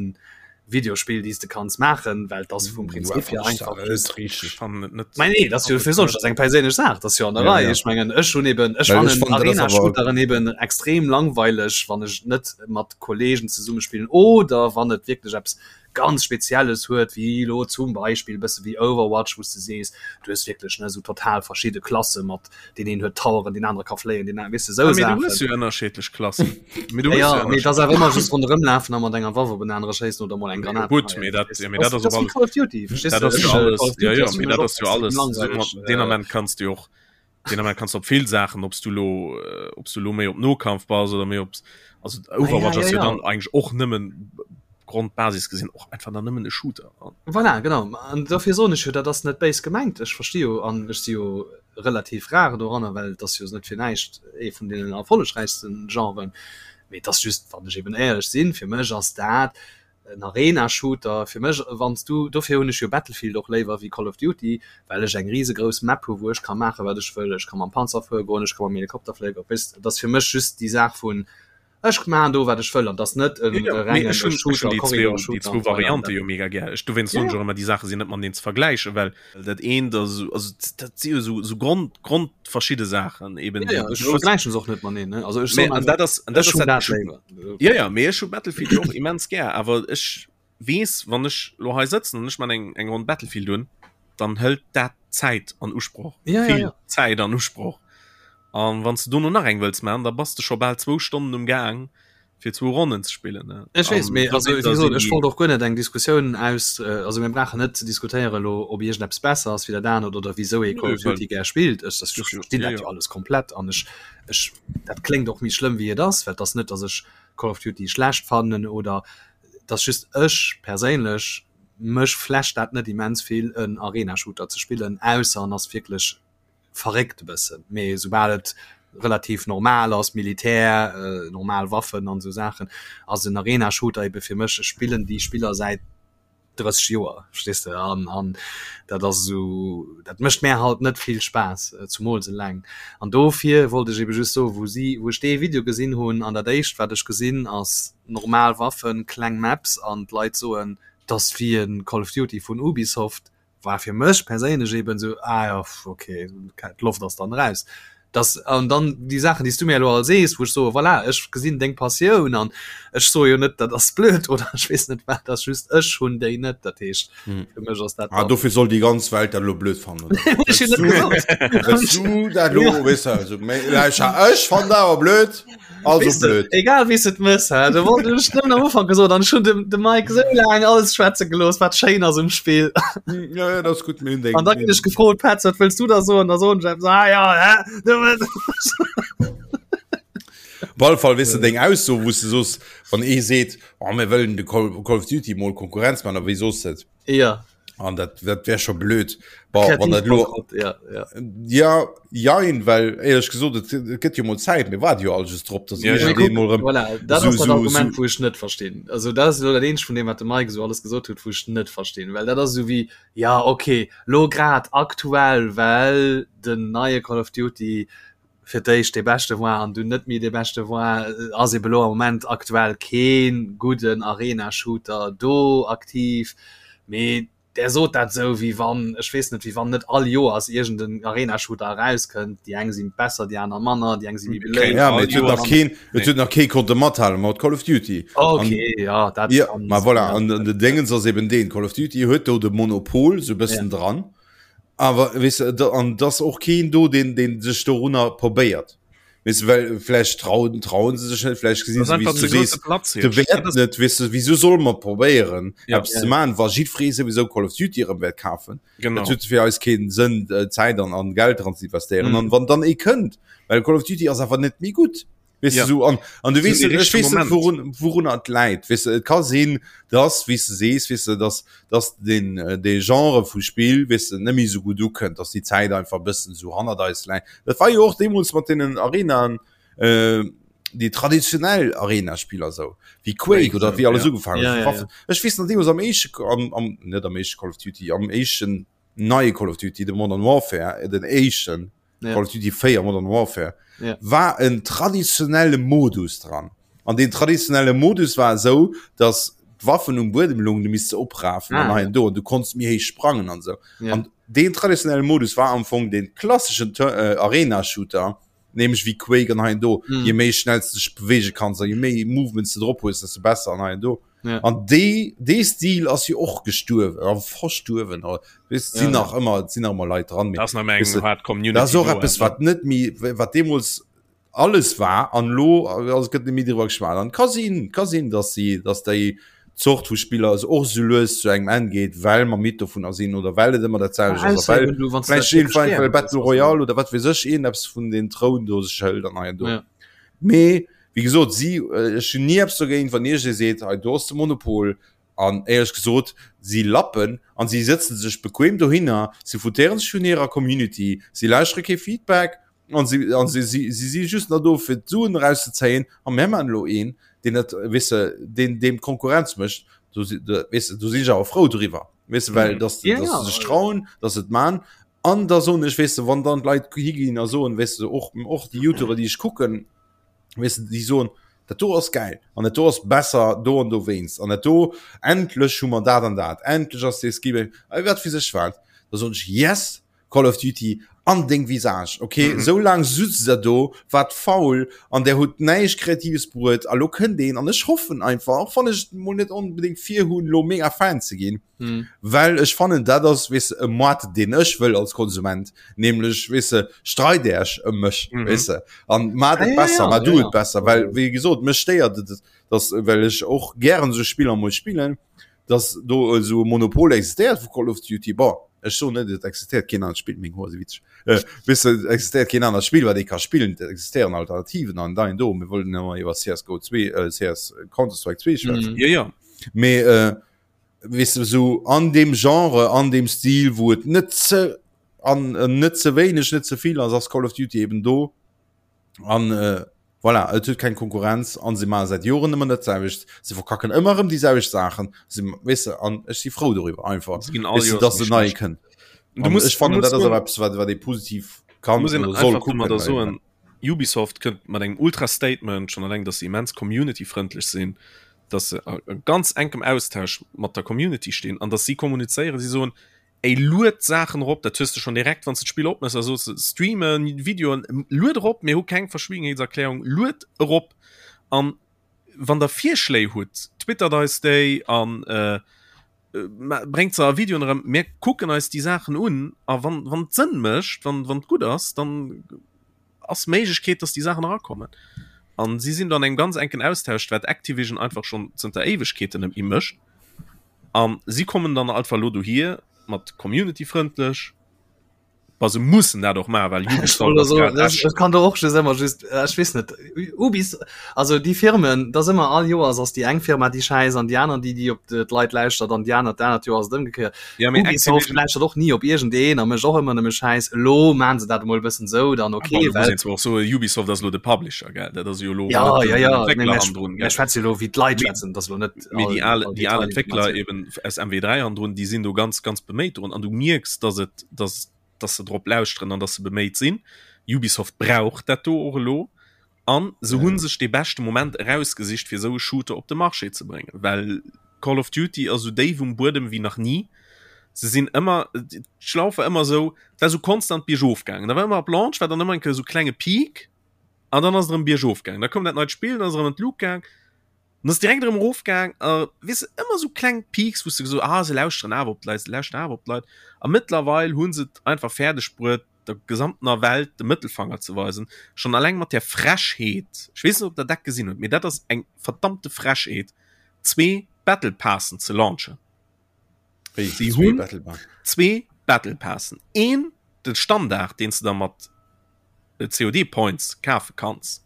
Videospill, déi s de kanns maachen, well et ass vum Prinzip hier einfach just. Mä nee, dat ass jo fir soss, dat ass eng perséinlech Saach, dat ass jo an der Rei. Ech mengen, ech hunn eben, ech fannen Arena-Shooteren eben extrem langweileg, wann ech net mat Kollegen zesumme spillen oder wann et wierklech eppes ganz Spezielles huet, wéi elo zum Beispill e bësse wéi Overwatch, wou s de sees, du hues wierklech, ne, esou total verschidde Klasse mat, deen een huet Toweren, deen anere ka fléien, deen anere, weess de, esou Ah, mee du Saachen. hues jo ënnerschiddlech Klassen. Mee du Ja, hues jo ja, mee et ass ënnerschiddlech awer ëmmer just ronderëm lafen a mat enger Waff op en anere schéissen oder mol eng Jo, Granat gutt, geheien, mee dat, verstees ja, de? mee dat Dat ass ass op wéi alles, Call of Duty, verstees dat de? ass jo Ech, alles, Call of ja, Duty ja, ass fir mee mech dat och ass jo extrem alles, sou langweileg. mat, deen Ament kanns du jo och Den Ament kannst op vill Saachen, ob du lo äh, ob du lo méi op Nokampf bass oder méi op also Overwatch ah, ja, ass ja, jo dann ja. eigentlich och nëmmen Grondbasis gesinn och einfach dann nëmmen e Shooter. Voilà, genau. An dofir soen ech jo, dat ass net béis gemengt. Ech versti jo an ech si jo relativ rar doranner, well et ass jo net fir näischt ee vun deenen erfollegräichsten Genren. Mee et ass just, wann ech eben éierlech sinn, fir mech ass dat en Arena-Shooter fir mech wann s du, dofir hunn ech jo Battlefield och léiwer wéi Call of Duty, well ech eng risegrouss Map hu wou ech ka maache wat ech wëll, ech ka mam Panzer fuere goen, ech ka mam Helikopter fléien, weess, et ass fir mech just déi Saach vun ech maachen do wat ech wëll an et ass net e rengen Shooter, Corridor-Shooter. Déi zwou Variante jo mega gär, ech dowéinst soen ech och ëmmer déi Saache sinn net mateneen ze vergläichen, well dat eent ass esou, also dat si jo esou esou Grond grondverschidde Saachen eben. Ja, ja, ech vergläichen se och net mateneen, ne, also ech soen einfach, dat ass, dat ech hunn ass dat léiwer. Ja, ja, mee ech hu Battlefield jo och immens gär, awer ech weess, wann ech lo hei sëtzen an ech man eng eng Ronn Battlefield un, dann hëlt dat Zäit an Usproch, Ja, ja, vill ja. Zäit an Usproch. An wann s de dono nach eng wëlls man, da bass de scho bal zwou Stonnen um Gaang fir zwou Ronnen ze spillen, ne? Ech weess, An mee also dowéinster wéi gesot, sinn ech déi wollt och guer net eng Diskussioun aus, also mir brauchen net ze diskutéieren elo, ob iergendeppes besser ass wéi dat anert oder wisou ee Call Nö, of well Duty gär spillt. Ech ech jo, verstinn jo, dat jo jo. alles komplett an ech ech dat kléngt och méi schlëmm wéi et ass, well et ass net, datt ech Call of Duty schlecht fannen oder et ass just ech perséinlech mech flasht dat net immens vill en Arena-Shooter ze spillen, ausser en ass wierklech verréckt e bëssen. Mee soubal et relativ normal ass, Militär, normal Waffen an esou Saachen, ass en Arena-Shooter ebe fir mech, ech spillen déi Spiller säit. 30 Joer, verstees de, an an dat ass esou, dat mécht mär halt net vill Spaass, zumools eleng. An dofir wollt ech ebe just soen, wou si, wou ech dee Video gesinn hunn an dat éischt wat ech gesinn ass normal Waffen, kleng Maps an d'Leit soen, 't ass wéi e Call of Duty vun Ubisoft, war fir mech perséinlech eben esou, ah jo, ok, d'Loft ass dann eraus. Dass, an dann déi Saachen, déi s du mir elo all sees, wou ech soe voilà, ech gesinn deng Passioun an ech soe jo net, dat ass blöd oder ech weess net wat, ass just ech hunn déi net. Dat heescht hm. fir mech ass dat. Ah, dofir soll déi ganz Welt dat elo blöd fannen. Du dat elo weess du, also, ech fannen dat awer blöd. Also weißt du, blöd. Egal wéi s et mëss, hä? Du wollt ech nëmmen am Ufank gesot an ech hunn dem, dem Mike sou laang alles schwätze gelooss, wat schéin ass um Spill. Hm, ja, ja, dat ass gutt. Mir hunn deng. An da ginn ech gefrot, Petz, wat wëlls du da soen? Da soen ech eppes, ah ja, hä? Du Op alle Fall, weess de, deng Ausso, wou s de soos, wann ee seet, oh, mir wëllen de Call, Call of Duty mol Konkurrenz man, a wéi soos de et? Ja. An dat, dat wär scho blöd. Bon, wann dat lo, ja, ja. Ja, jein, well éierlech gesot, et, et gëtt jo mol Zäit, mir waarde jo all just drop, dass ja, ja. iergendeen mol erëm Voilà, dat so, ass dat so, Argument, so wou ech net verstinn. Also dat ass elo dat eenzegt vun deem, wat de Mike esou alles gesot huet, wou ech net verstinn. Well dat ass esou wéi, ja okay, lo grad aktuell, well den neie Call of Duty fir d'éischt dee beschte war an dunn net méi dee beschte war, ass ebe lo am Moment aktuell kee gudden Arena-Shooter do aktiv. Mee där sot dat esou, wéi wann, ech weess net, wéi wann net all Joers iergend en Arena-Shooter erauskënnt. Déi eng si besser, déi aner manner, déi eng si méi beléift. Ja, mee et huet nach keen, et huet nach kee konnte mathale mat Call of Duty. Okay, ja, dat ja, ma voilà, an den Déngens ass eben deen, Call of Duty huet do de Monopol sou e bëssen dran. Awer weess de, an et ass och keen do, deen, deen sech dorunner probéiert. Weess de, well vläicht trauen, trauen se sech net, vläicht gesinn Das se, einfach wéi s ze du sees, grouse Platz de Wäert net. Weess de, wieso solle mer probéieren, Ja. eppes ze maachen, wa jiddweree souwisou Call of Duty erëm wäert kafen? Genau. Dat huet fir eis keen Sënn, Zäit an, an Geld dran ze investéieren. Mhm. An wann dann ee kënnt, well Call of Duty ass awer net méi gutt. Weess Ja. du, so, an, an du So weess de net, ech richtege weess net, Moment. worun, worunner et läit. Weess du, et ka sinn, dass, wéi s de sees, weess du, dass, dass den, äh, dee Genre vu Spill, weess du, net méi esou gutt ukënnt, dass déi Zäit einfach e bëssen esou hannert eis läit. Dat war jo och deemools mat deenen Arenaen, äh, déi traditionell Arena-Spiller esou, wéi Quake oder wéi alles ja. ugefaangen Ja, huet, ja, Waffen. Ech weess nach deemools am éischte, am, am, net am éischte Call of Duty, am éischten neie Call of Duty, de Modern Warfare, den éischten, ja. Call of Duty 4 Modern Warfare ja. war en traditionelle Modus dran. An den traditionelle Modus war esou, dass d'Waffen um Buedem lungen, du misst se oprafen ah, an ja. do du konntest méi héich sprangen an sou. Ja. An den traditionelle Modus war am Fong den klassischen äh, Arena-Shooter, nämlich wie Quake an hein do. Mhm. Je méi schnell du dech bewege kannst, je méi Movements du drop hues, desto besser an hein do. Ja. An dee dee Stil ass jo och gestuerwen a verstuerwen. Weess, Ja, sinn ja. nach ëmmer sinn nach ëmmer Leit dran, mee Das nach eng weess de, hart Community dat ass och do, eppes awer. wat net méi wat deemools alles war an elo also gëtt net méi driwwer geschwat. An ka sinn ka sinn, datt si datt déi Zort vu Spiller also och sou lues zu engem Enn geet, well mer midd dovunner sinn oder well et ëmmer dat selwecht ass a well Ausser du, wann s du dat vläicht iergendwann wierklech well gär Battle hues, Royale oder wat weess ech iergendeppes vun den Troun do sech hëlt an hei an do. Ja. Mee wéi gesot, si, ech hunn ni eppes dogéint, wann iergendee seet, hei do ass de Monopol. An éierlech gesot, si lappen an si sëtze sech bequem dohinner, si foutéiere sech vun hirer Community, si lauschtere kee Feedback an si, an si, si, si si just nach do fir d'Suen erauszezéien. A mir maachen elo een, deen dat, weess de, deen deem Konkurrenz mécht. Do si, weess de, do sinn ech awer frou driwwer, weess de, well datt, Ja, datt se sech trauen, datt se et maachen. An da soen ech, weess de, wann dann d'Leit higinn a soen, weess de, och, och déi Youtuber, déi ech kucken, weess de, déi soen, dat do ass gäil an dat do ass besser do an dowéinst an dat do, endlech hu mer dat an dat, endlech ass dee Skill, wat weess ech wat, da soen ech, yes, Call of Duty an deng Visage, okay, mm -hmm. sou laang sutzt der do, waart faul an der hutt näischt Kreatives bruet a lo kënnt een an ech hoffen einfach, och wann ech mol net onbedéngt vir hunn, lo mega Fan ze ginn, Mhm. Well ech fannen dat ass weess de e Moart deen ech wëll als Konsument, nämlech weess de streit Äech ëm mech Mhm. weess de an mat Ah, et ja, besser, ja, mat ja, du ja. et besser, well wéi gesot mech stéiert et dass well ech och gären esou Spiller mol spillen, dass do esou e Monopol existéiert vu Call of Duty. Bon ech soen net et existéiert keen anert Spill, meng Hoer si witzeg, äh, weess de et existéiert keen anert Spill wat ee ka spillen, et existéieren Alternativen an da do, mir wollten ëmmer iwwer CSGO 2, äh, CS Counter Strike 2 schwätzen. Mhm. Ja, ja. Mee äh, weess de, sou an deem Genre, an deem Stil, wou et net ze an äh, net ze wéineg, net ze vill ass, ass Call of Duty eben do. An äh, Voilà, et huet keng Konkurrenz an se maache säit Joren ëmmer dat selwecht. Se verkacken ëmmer erëm déi selwecht Saachen. Se, weess de, an ech si frou doriwwer einfach, Se ginn all weess de, Joers dass méi en neie schlecht. kënnt. Du An muss, ech du fannen, muss dat ass soen, awer eppes, wat, wat ee positiv kann muss een oder soll einfach kucken. domadder Well, soen, Ubisoft kënnt mat engem Ultra-Statement, schonn alleng, dass se immens community-frëndlech sinn, dass se a ganz enkem Austausch mat der Community stinn an dass si kommunizéieren, si soen, Ey, lued Saachen erop, dat hues de schonn direkt, wann s de d'Spill opmëss a soos streamen, Videoen, lued erop, mir hu keng Verschwiegenheetserklärung, lued erop an wann der Virschléi hutt, twittert eis déi an bréngt se a Videoen erëm, mir kucken eis déi Saachen un a wann wann et Sënn mécht, wann wann et gutt ass, dann ass Méiglechkeet, dass déi Saachen erakommen. An si sinn do an engem ganz enken Austausch, wat Activision einfach schonn zënter Éiwegkeeten net méi mécht. An si kommen dann einfach elo dohier mat community-frëndlech. Bah, se mussen dat och maachen, well Ubisoft ass grad Ech echt. kann do och just ëmmer just, ech weess net, Ubis, also déi Firmen, dat ass ëmmer all Joers ass déi eng Firma déi schäiss an déi aner déi déi op d'Leit lauschtert an déi aner d'anert Joer ass et ëmgekéiert. Ja, mee Ubisoft Activision lauschtert och ni op iergendeen a mécht och ëmmer nëmme Schäiss. Elo maachen se dat emol e bëssen esou, dann Ah, okay, bon, do muss well een zwar och soen, Ubisoft ass elo de Publisher, gell? Dat ass jo elo Ja, net ja, den ja, mee Entwéckler mir hannendrun, mir gell? schwätze jo elo wéi d'Leit Mee schwätzen, dat ass elo net mee all déi al all déi al Entwéckler Detailinformatioun. eben aus MW3 hannendrun, déi sinn do ganz, ganz beméit drun an du mierks, dass et dass dass se drop lauschteren an dass se beméit sinn. Ubisoft brauch dat do och elo An se hu sech dee beschte Moment erausgesicht, fir esou e Shooter op de Marché ze bréngen, well Call of Duty ass esou déif um Buedem wéi nach ni. Se sinn ëmmer, d'Schlauf war ëmmer esou, et war esou konstant biergof gaangen. Da war ëmmer ab Launch war dann ëmmer eng Kéier esou klenge Peak an dann ass et erëm biergof gaangen. Da koum dat neit Spill, dann ass et erëm an d'Luucht gaang, dann ass et direkt erëm erof gaang. A weess de, ëmmer esou kleng Peaks, wou s de gesot, ah se lauschteren awer op d'Leit, se lauschteren awer op d'Leit. A mëttlerweil hu se et einfach fäerdeg bruet, der gesamtener Welt de Mëttelfanger ze weisen, schonn alleng mat där Frechheet, ech weess net ob der dat gesinn hutt, mee dat ass eng verdammte Frechheet, zwee Battle Passen ze launchen. Wéi, Si zwee hunn Battle Pass? zwee Battle Passen, een de Standard, deen s de da mat COD Points kafe kanns,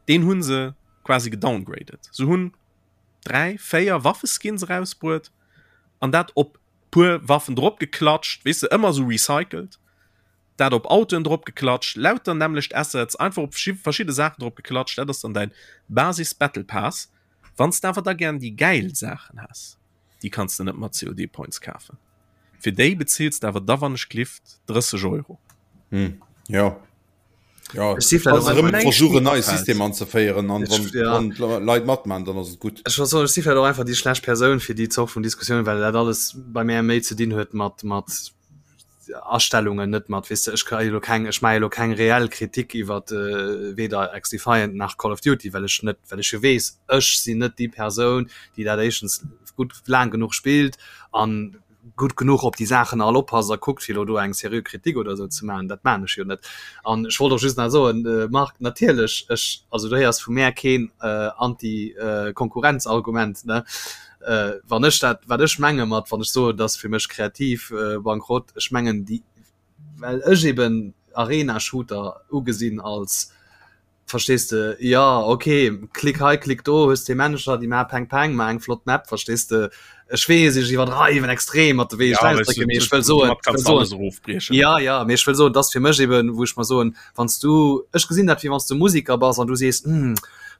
deen hu se quasi gedowngraded. Se hunn 3, 4 Waffeskins erausbruet an dat op puer Waffen drop geklatscht, weess de, ëmmer esou recycelt, dat op Autoen drop geklatscht, lauter nämmlecht Assets, einfach op verschidde Saachen drop geklatscht, dat ass dann däin Basis Battle Pass. Wann s de awer da gären déi gäil Saachen häss, déi kanns de net mat COD Points kafen, fir déi bezills de awer da wann ech glift 30 Euro. Hm, jo. Ja, Ech si vläicht also och erëm einfach näischt versuchen méi neie afält. System anzeféieren an wann, Ja. wann d'Leit matman, dann ass et gutt. Ech wollt soen, ech si vläicht och einfach déi schlecht Persoun fir déi Zort vun Diskussioun, well dat alles bei mär méi ze dinn huet mat mat Astellungen, net mat, weess de, ech ka jo elo keng, ech maache jo elo keng reell Kritik iwwer weder XDefiant nach Call of Duty, well ech net, well ech jo weess, ech sinn net déi Persoun, déi dat éischtens gutt laang genuch spillt an gutt genuch op déi Saachen all oppasst a kuckt, fir elo do eng seriö Kritik oder esou ze maachen. Dat maachen ech jo net. An ech wollt och just nach soen, Marc, natierlech, ech, also du héiers vu mär keen Anti-Konkurrenz-Argument, ne? Wann ech dat, wat ech menge mat, wann ech soen, et ass fir mech kreativ Bankrott, ech mengen déi, well ech eben Arena-Shooter ugesinn als Verstees de? Jo, ok, klick hei, klick do, hues déi Männecher, déi maache Peng Peng, mar eng flott Map, verstees de? Ech weess, ech iwwerdreiwen extrem mat de wéi ech Ja, weißt ausdrécken, du, mee ech wëll soen, domat ech wëll kannst du soen, alles erofbriechen. ja, ja, mee ech wëll soen, et ass fir mech eben, wou ech mer soen, wann s du, ech gesinn dat wéi wann s du Musiker bass an du sees, hm,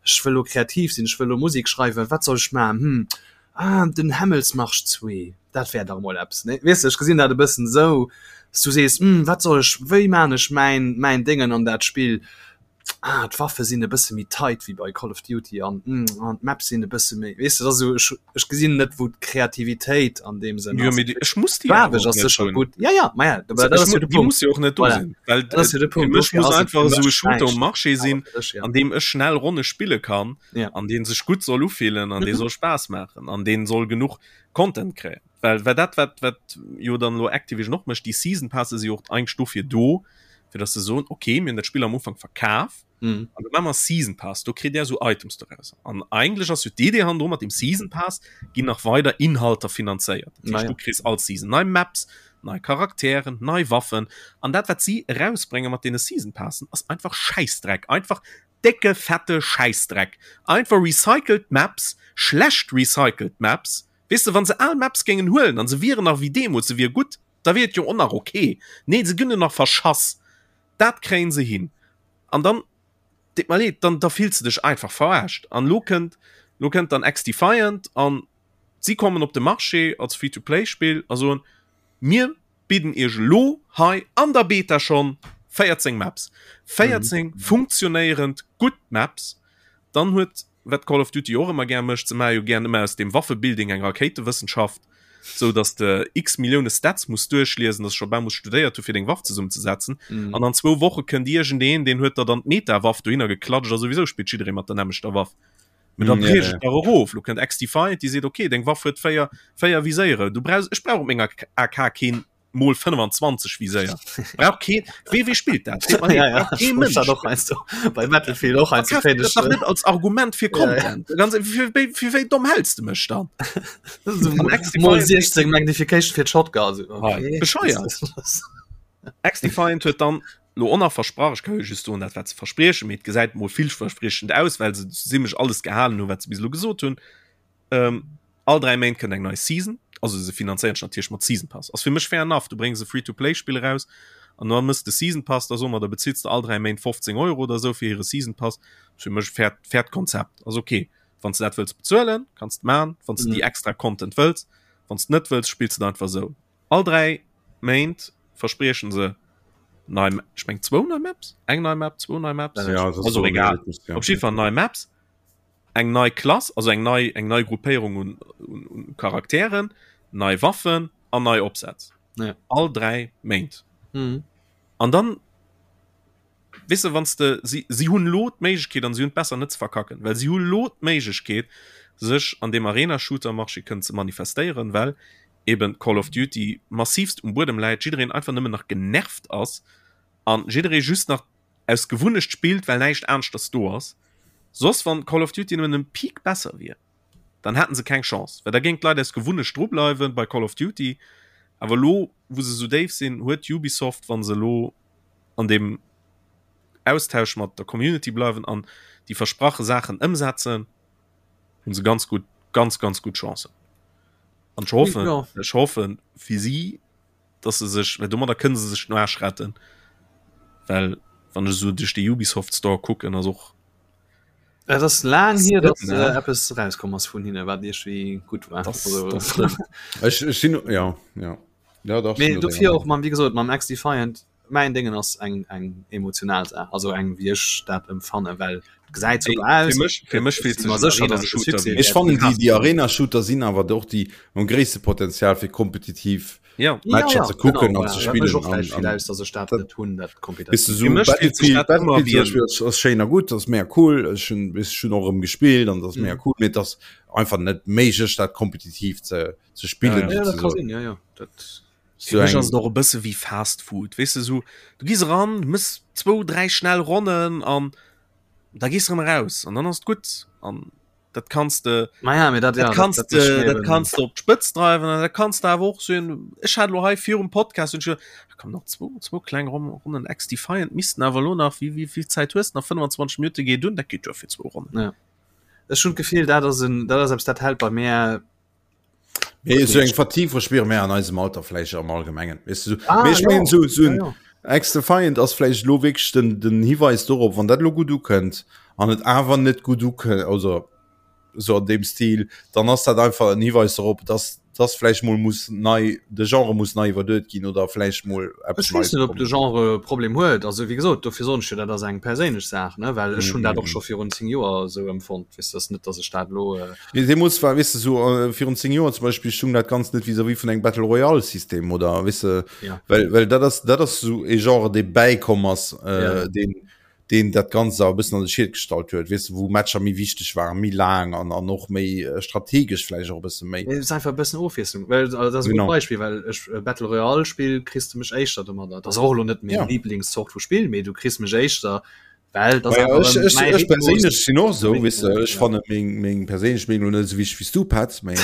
ech wëll elo kreativ sinn, ech wëll elo Musek schreiwen, wat soll ech maachen, hm, ah, den Hämmelsmarsch 2, dat wär dach emol eppes, ne? Weess de, ech gesinn dat e bëssen esou, s du sees, hm, wat soll ech, wéi maan ech mäin, mäin Déngen an dat Spill? Ah, d'Waffe sinn e bësse méi tight wéi bei Call of Duty an hm, an d'Maps sinn e bësse méi, weess de, dat ass esou, ech, ech gesinn net, wou d'Kreativitéit an deem Sënn Jo, ass. mee déi, ech muss déi awer Faarweg och ass net sécher hunn. gutt, ja, ja, ma ja, Also, dat ech ass jo mu de déi Punkt. muss jo och net do Voilà, sinn, well dat ass jo de fir Punkt, mech dofir muss ass et einfach fir esou e mech Shooter um näischt, Marché awer sinn, fir dech, ja. an deem ech schnell Ronne spille kann Ja. an dee sech gutt soll ufillen an dee Mhm. soll Spaass maachen an dee soll genuch Content kréien. Well, well dat, wat, wat jo dann elo Activision och mécht, déi Season Passe si jo och eigentlech dofir do, fir dass se soen, okay, mir hunn dat Spill am Ufank verkaf, Mhm. an da maache mer Season Pass, do kritt där esou Items doraus. An eigentlech ass jo d'Idee hannendru, mat dem Season Pass ginn nach weider Inhalter finanzéiert. Dat heescht, Naja. du kriss all Season nei Maps, nei Charakteren, nei Waffen. An dat, wat si erausbrénge mat deene Season Passen, ass einfach Schäissdreck. Einfach décke, fette Schäissdreck. Einfach recycelt Maps, schlecht recycelt Maps, Weess de, wann se al Maps géingen huelen an se wieren nach wéi deemools, se wier gutt, da wier et jo och nach ok. Nee, se ginn jo nach verschass. Dat kréien se hin. An dann. Deet mer leed, dann da fills de dech einfach verarscht. An lo kënnt, lo kënnt dann XDefiant an si kommen op de Marché als Free-to-Play-Spill a soen, mir bidden iech elo hei an der Beta schonn 14 Maps. 14 mhm. funktionéierend gutt Maps. Dann huet wat Call of Duty och ëmmer gär mécht, se maache jo gär ëmmer aus dem Waffebuilding eng Rakéitewëssenschaft, sou dass de x Millioune Stats muss duerchliesen, dass scho bal muss studéiert hu fir deng Waff zesummenzesetzen. Mhm. An an zwou Woche kënnt iergendeen, deen huet der dann d'Meta-Waff dohinner geklatscht a souwisou spillt jidderee mat der nämmlechter Waff. Mee dann mm, ja, ja. erof. Lo kënnt XDefiant, déi seet okay, deng Waff huet véier, véier Viséiere. Du brauchs, ech brauch op menger AK keen mol 25 Viséier. Brauch keen, wee, wee spillt dat? Seet mer Ja, ja. brauch kee Mënsch. Och heiansdo bei Battlefield och heiansdo Verkaf dat dach net als Argument fir Content. Ja, ja. Ganz, fir, fir, fir wéi domm häls de mech dann? Mol 16 Magnification fir d'Shotgun. Also, okay. Bescheuert. XDefiant huet dann lo och nach versprach, ech ka jo just soen dat wat se verspriechen, mee et gesäit mol villverspriechend aus, well se zimmlech alles gehalen hunn, wat se bis elo gesot hunn. Ähm, all 3 Méint kënnt eng nei Season, also se finanzéieren sech natierlech mat Season Pass. Ass fir mech fair enough, du bréngs e Free-to-Play-Spill eraus an da mëss de Season Pass, da soe mer, da bezills de all 3 Méint 15 Euro oder esou fir hire Season Pass. Ass fir mech e fairt, fairt Konzept, ass ok. Wann s de dat wëlls bezuelen, kanns de man, wann s de déi extra Content wëlls, wann s de net wëlls, spills de et einfach esou. All 3 Méint verspriechen se nei, ech meng zwou nei Maps, eng nei Map, zwou nei Maps, ja, also egal, op jiddwer Fall nei Maps, eng nei Klass, also eng nei, eng nei Gruppéierung un, un, un Charakteren, nei Waffen an nei Opsätz. Ja. All 3 Méint. Mhm. An dann weess de, wann s de, si, si hunn elo d'Méiglechkeet an si hunn et besser net ze verkacken, well si hu lo d'Méiglechkeet, sech an deem Arena-Shooter-Marché kënnen ze manifestéieren, well eben Call of Duty massivst um Buedem läit, jiddereen einfach nëmmen nach genervt ass an jidderee just nach aus Gewunnecht spillt, well näischt aneschters do ass. Soss, wann Call of Duty nëmmen en Peak besser wier, dann hätten se keng Chance, well da géing d'Leit aus Gewunnecht dru bleiwen bei Call of Duty. Awer elo, wou se esou déif sinn, huet Ubisoft, wa se elo an deem Austausch mat der Community bleiwen an déi versprache Saachen ëmsetzen, hunn se ganz gutt, ganz, ganz gutt Chancen. An ech hoffen, ja. ech hoffen fir si, dass se sech, well domadder kënne se sech den Aarsch retten. Well wann ech esou duerch de Ubisoft Store kucken, ass och Et ass laang hier, dass äh, eppes rauskomm ass vun hinne, wat iergendwéi gutt war. Das, also, das stimmt. Ech, ech sinn, ja, ja. Ja, dach, Mee dofir och mam, wéi gesot, mam XDefiant, Mäin Déngen ass eng eng emotional Saach, also eng wéi ech dat emfannen, well et gesäit super aus. Fir mech, fir mech fillt sech sécher, dass et e Succès Ech fannen déi déi Arena Shooter sinn awer och déi mam gréisste Potenzial fir kompetitiv ja. Matcher ja, ze kucken genau, an ze ja, dat mécht spillen och vläicht an vill an aus, dass ech dat net hunn, dat Weess de kompetitiv. sou Fir mech fillt sech Battlefield dat ëmmer Battlefield wéi zum en Beispill ass ass schéin a gutt, ass mega cool, ech hunn ech hunn och erëm gespillt an ass mega cool, mee et ass einfach net méiglech dat kompetitiv ze ze spillen Ja, dat ka souzesoen. sinn, ja, ja, dat. Fir mech ass et och e bësse wéi Fast Food, weess de, sou du gees eran, du mëss zwou, dräi schnell Ronnen an da gees de erëm eraus an dann ass et gutt. An dat kanns de, Ma ja, mee dat, dat ja, kanns dat, dat de, mécht mir dat eben. kanns de op d'Spëtz dreiwen an dat kanns de awer och sinn. Ech hat elo hei virum Podcast hunn ech geduecht, ah komm nach zwou, zwou kleng Ron Ronnen XDefiant missten awer elo nach, wéi, wéi vill Zäit hues de nach? 25 Minutte geet un, dat geet duer fir zwou Ronnen. Ja. Ech hunn d'Gefill, dat ass en, dat ass eppes, dat hält bei mär Mee sou eng Fatigue verspiere mär an eisem Alter vläicht am Allgemengen. Weess de, sou, Ah, mee ech ja. mengen, sou, sou Ja, en ja. XDefiant ass vläicht elo wierklech den, den Hiweis dorop, wann dat elo gutt ukënnt an et awer net gutt ukënnt, also sou an deem Stil, dann ass dat einfach en Hiweis dorop, dass, dass vläicht mol muss nei, de Genre muss nei iwwerduet ginn oder vläicht mol eppes Ech weess Neies net, ob de kommen. Genre e Problem huet. Also wéi gesot, dofir soen ech jo, dat ass eng perséinlech Saach, ne, well ech hunn dat och scho virun 10 Joer esou empfonnt. Weess de, ass net, dass ech dat elo. Nee, deemools war, weess de, sou virun 10 Joer zum Beispill stung dat Ganzt net vis-à-vis vun engem Battle Royale System oder weess de, Ja. well, well dat ass, dat ass sou e Genre, dee bäikomm ass, äh, Ja. deen, deen dat Ganzt awer e bëssen an de Schiet gestallt huet, weess de, wou Matcher méi wichteg waren, méi laang an, an och méi strategesch vläicht och e bësse méi. Et ass einfach e bëssen Ofwiesslung, well also dat ass e gutt Genau. Beispill, well ech Battle Royale Spill kriss de mech éischter domadder. Dat ass och elo net meng Ja. Liblingszort vu Spill, mee du kriss mech éischter Well das ja, einfach ech, ech, mäi ech Rhythmus. perséinlech sinn och sou, weess de, ech Ja. fanne meng, meng perséinlech Meenung net esou wichteg wéi s du, Petz, mee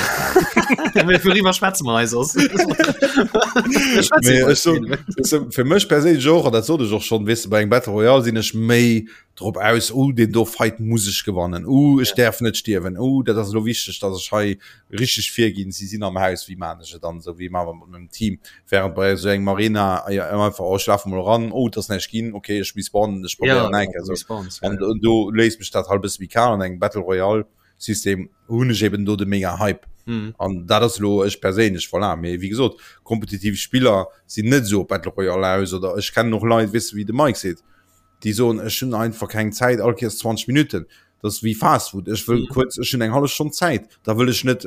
Mee wouriwwer schwätze mer hei soss? Mir schwätzen mee iwwer ech so, Spill. weess de, fir mech perséinlech och, an dat sot ech och schonn, weess de, bei engem Battle Royale sinn ech méi. drop aus, oh deen do Fight muss ech gewannen, oh ech däerf net stierwen, oh dat ass elo wichteg, datt ech hei richteg virginn, si sinn am Haus, wéi maan ech et an esou, wéi maa mer mat mengem Team, während bei esou engem Arena einfach, oh ech lafe mol eran, oh et ass näischt ginn, okay ech respawnen, ech probéieren nach eng Kéier esou. An do léisst mech dat halt e bësse méi kal. An engem Battle Royale System hunn ech eben do de mega Hype. Mm. An dat ass lo ech perséinlech voilà. Mee wéi gesot, kompetitiv Spiller sinn net esou op Battle Royale aus oder ech kennen och Leit, weess de wéi de Mike seet, déi soen ech hunn einfach keng Zäit, all Kéiers 20 Minutten. Dat ass wéi Fast Food, ech wëll mm. kuerz, ech hunn eng hallef Stonn Zäit, da wëll ech net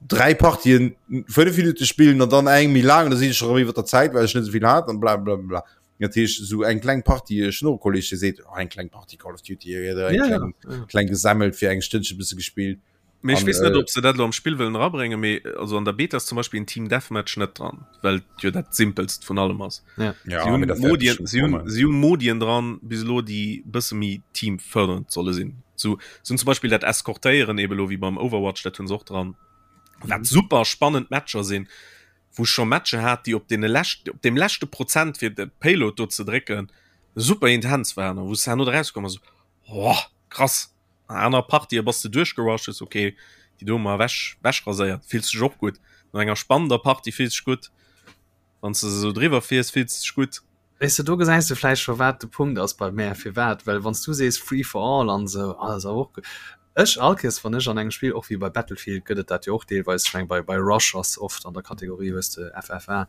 dräi Partien 5 Minute spillen an dann eng méi laang, da sinn ech schon erëm iwwer der Zäit, well ech net esou vill hat an bla bla bla. Dat heescht esou eng kleng Partie, ech hunn och e Kolleg dee seet, oh eng kleng Partie Call of Duty oder eng ja, kleng, ja, ja. kleng gesammelt fir eng Stënnche bësse gespillt. Mee ech weess net, äh, ob se dat lo am Spill wëllen erabréngen, mee also an der Beta ass zum Beispill en Team Deathmatch net dran, well jo dat simpelst vun allem ass. Ja. Ja, si hunn Modien, si hunn, si hunn Modien dran bis elo, déi bësse méi teamfördernd solle sinn. So, sinn zum Beispill dat Eskortéieren eben lo wéi beim Overwatch, dat hunn se och dran. Wat mhm. super spannend Matcher sinn. wou ech scho Matcher hat, déi op deene lescht, op deem leschte Prozent fir de Payload do ze drécken, super intens waren a wou s de herno erauskomm bass, oh, krass. An aner Partië bass de duerchgerusht, hues ok, déi do hu mer ewech, ewechraséiert, fills dech och gutt. No enger spannender Partie fills dech gutt, wann s de se esou driwwer fiers, fills dech gutt. Weess de, do gesäis de vläicht scho wat de Punkt ass bei mär, firwat, well wann s du sees Free for all an esou, ah, ass awer och gutt. Ech all Kéiers wann ech an engem Spill, och wéi bei Battlefield gëtt et dat jo och deelweis, ech meng bei bei Rush ass oft an der Kategorie hues de FFA,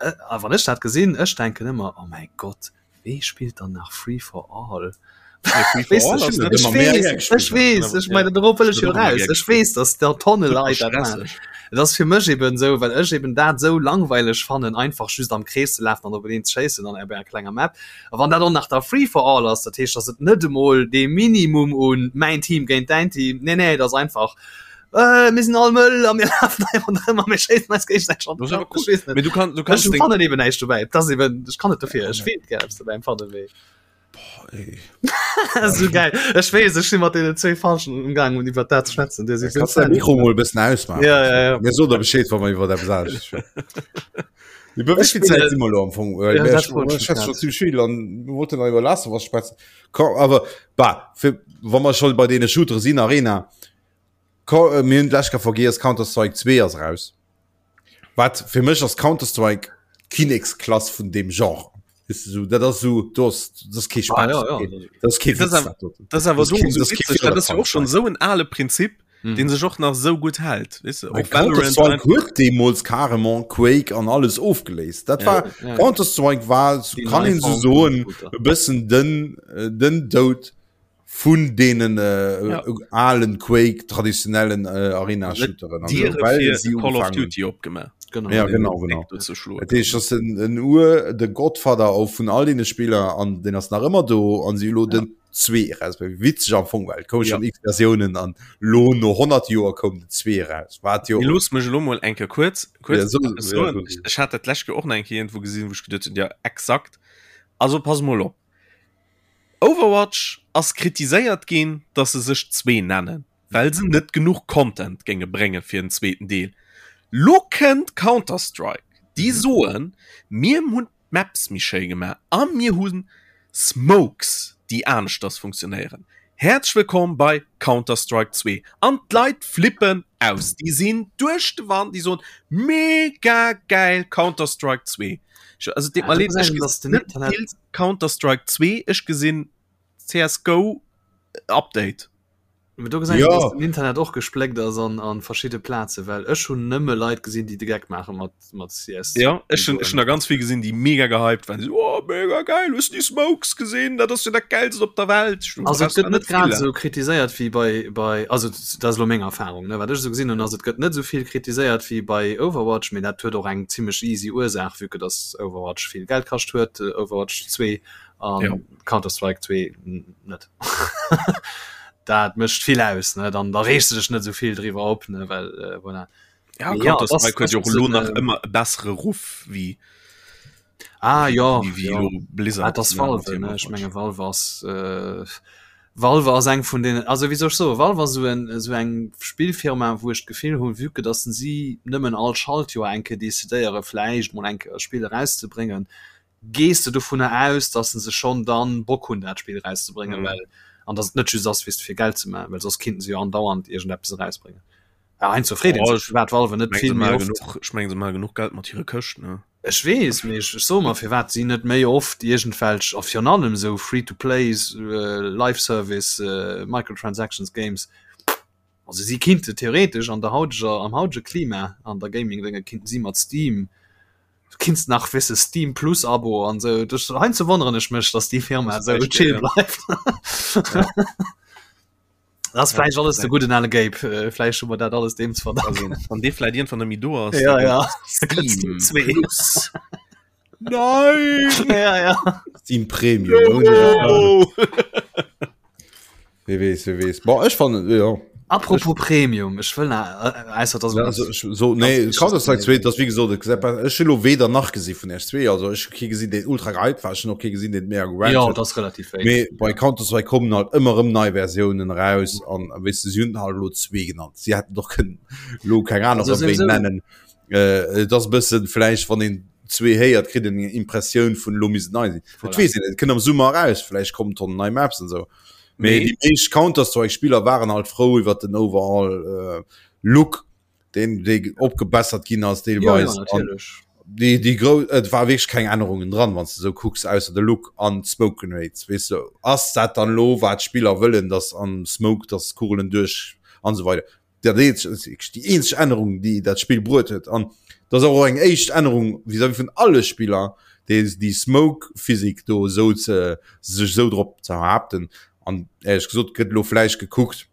a wann ech dat gesinn, ech denken ëmmer, oh mäi Gott, wee spillt dann nach Free for all? Ech weess, ech meine dorop wëll ech jo raus. Ech weess, datt der Tonne Leit dat maachen. Et ass fir mech eben esou, well ech eben dat esou langweileg fannen, einfach just am Krees ze lafen an op eneen ze schéissen an op enger klenger Map. A wann dat och nach da Free for all ass, dat heescht, datt et net emol dee Minimum un mäin Team géint däin Team, nee nee, et ass einfach, äh, mir sinn all mëll a mir lafen hei ronderëm a mir schéissen eis géigesäiteg an de Kapp. Ech weess net. Mee du kann, du kannst Ech fannen eben näischt dobäi. Et ass eben, ech kann net dofir, ech feelt gär eppes dobäi, empfannen wéi. So geil. Ech weess, ech si mat deenen zwéi Falschen umgaang un iwwer dat ze schwätzen. Dir sidd Kannst dein Mikro mol e bëssen ausmaachen? Ja, ja, ja. Mir soen der Bescheed, wa mer iwwer eppes anescht schwätzen. Iwwer wéi vill Zäit si mer elo am Fong? Well Ja, mir dat wollt ech schwätzen grad. schon zimmlech vill an mir wollten nach iwwer Last of Us schwätzen. Komm, awer bah, fir, wa mer schon bei deene Shootere sinn, Arena, ko, äh, mir hunn d'lescht Kéier vergiess, Counter-Strike 2 ass raus. Wat fir mech ass Counter-Strike d'Kinneksklass vun deem Genre. Weißt du, so, dat ass so, do ass, dat ass kee Spaass, Ah, ja, ja. dat ass kee Das Witz, ass dat doten. Das awer Das do keen- so das keen witzeg, dat ass jo och schon Counter-Strike. sou en ale Prinzip, Mhm. den sech och nach sou gutt hält, weess de, Well och Valorant Counter-Strike einfach. huet deemools carrément Quake an alles ofgeléist. Dat Ja. war Ja. Counter-Strike war, Déi kann nei een sou Form vum soen, Shooter. e bëssen den, äh, den Doud vun deenen äh, Ja. alen Quake traditionellen äh, Arena-Shooteren. an Diere so, well fir si Call of ugefaangen Duty opgemaach. Genau. Ja, genau, genau. Do ze schloen. Dat heescht, das en, en Ur, de Godfather auch vun all deene Spieler an den ass nach ëmmer do an si lo den 2 raus. Witzeg am Fong, well koum Ja. schon x Versiounen an lo no 100 Joer koum den 2 raus. Wat jo Mee looss mech elo mol eng Kéier kuerz, kuerz Ja, so- eppes ja, soen. so- Ech, ech hat dat d'lescht Kéier och nach eng Kéier iergendwou gesinn, wou ech geduet hunn, ja exakt. Also pass mol op. Overwatch ass kritiséiert ginn, dass se sech zwee nennen, well se net genuch Content géinge brénge fir en zweeten Deel. Lo kënnt Counter-Strike, déi soen, mir hunn d'Maps méi schéi gemaach a mir hu Smokes, déi aneschters funktionéieren. Häerzlech wëllkomm bei Counter-Strike 2. An d'Leit flippen aus, déi sinn duerch de Wand, déi soen, mega gäil Counter-Strike 2. Also et deet mer leed, ech gesinn net vill Counter-Strike 2, ech gesinn CSGO Update. Mee do gesäis Ja. du, dass den Internet och gespléckt ass an, an verschidde Plaze, well ech hunn nëmme Leit gesinn, déi de Geck maache mat, mat CS. Ja, ech hunn ech hunn der ganz vill gesinn, déi mega gehypt waren. So, oh, mega geil, hues du déi Smokes gesinn? Dat ass jo dat Geilst op der Welt. Ech Also et gëtt net grad vill. esou kritiséiert wéi bei, bei also dat ass elo meng Erfahrung, ne, wat ech esou gesinn hunn, ass et gëtt net esou vill kritiséiert wéi bei Overwatch, mee dat huet och eng zimmlech easy Ursaach, vue que dass Overwatch vill Geld kascht huet, Overwatch 2 an Ja. Counter-Strike 2 net. Dat mécht vill aus, ne, dann da reegst du dech net esou vill driwwer op, ne, well äh, voilà. Ja, Mee ja, Counter-Strike das- huet jo das och elo ist, nach äh, ëmmer e bessere Ruff wéi Ah ja, wéi ja. elo Blizzard. Ah, das ne, Valve, mat hirem ne? Ech Overwatch. menge Valve ass äh, Valve ass eng vun den also wéi soll ech soen, Valve ass esou en esou eng Spillfirma, wou ech d'Gefill hunn, vue que dass si nëmmen all Schaltjoer eng Kéier decidéiere vläicht mol eng Kéier e Spill erauszebréngen, Gees de dovunner aus, dass se schonn dann Bock hunn dat Spill erauszebréngen, mhm. well an dass et net just ass wéi fir Geld ze maachen, well soss kinnten se jo andauernd iergendeppes erausbréngen. Ja, heiansdo freet een sech, firwat Valve net vill méi oft. Ech mengen se maache genuch Geld mat hire Këscht, ne? Ech weess, mee ech soe mer, firwat si net méi oft iergendwelch, a virun allem esou Free-to-Plays, Live-Service, Microtransactions Games, also si kinnte theoretesch an der hauteger, am hautege Klima an der Gaming-Dénge kinnten si mat Steam, du kinns nach wisse Steam Plus Abo an esou, heiansdo wonneren ech mech, datt déi Firma esou chill bleift. Das ja, vielleicht alles de guten ale Gabe äh, vielleicht schon mal dat alles dem zu verdanken an de vielleicht irgendwann nämlich du hast ja, ja. Nein ja, ja. Steam Premium oh. Wie wees, wie wees. Bon, ech fand ja. Apropos Premium, ech wëll ausser dass ja, also, ich, so nee, Counter-Strike 2 das wie gesot ech lo weder nach gesi vun R2 also ech hu kee gesinn deen ultra gehypt war ech hunn och kee gesinn deen mega gerannt Ja, huet. dat ass relativ wéi. Mee bei Counter-Strike kommen halt ëmmer erëm nei Versiounen eraus an weess de si hunn halt elo zwee genannt. Si hätten och kënnen elo keng aner Also wéi souwisou. nennen. Äh, et ass e bëssen vläicht wann een zwee héiert kritt een eng Impressioun vun elo misst et nei sinn. Et Voilà. weess een net, et kënnt am Summer eraus, vläicht kommen Tonnen nei Maps an esou. Mee Mee déi meescht Counter-Strike-Spiller waren halt frou iwwer den overall äh, Look deen dee opgebessert ginn ass deelweis. Ja, ja, natierlech. Déi, déi gro et war wierklech keng Ännerungen dran, wann s de sou kucks, ausser de Look an d'Smoke Grenades. Weess de, ass dat dann elo wat d'Spiller wëllen, datt am Smoke, datt d'Kugelen duerch an esou weider. Dat eenzeg, dat ass wierklech déi eenzeg Ännerung, déi dat Spill bruet huet. An dat ass och eng éischt Ännerung vis-à-vis vun alle Spiller, déi déi Smoke Physik do esou ze sech esou drop ze behaapten. An éierlech gesot gëtt elo vläicht gekuckt,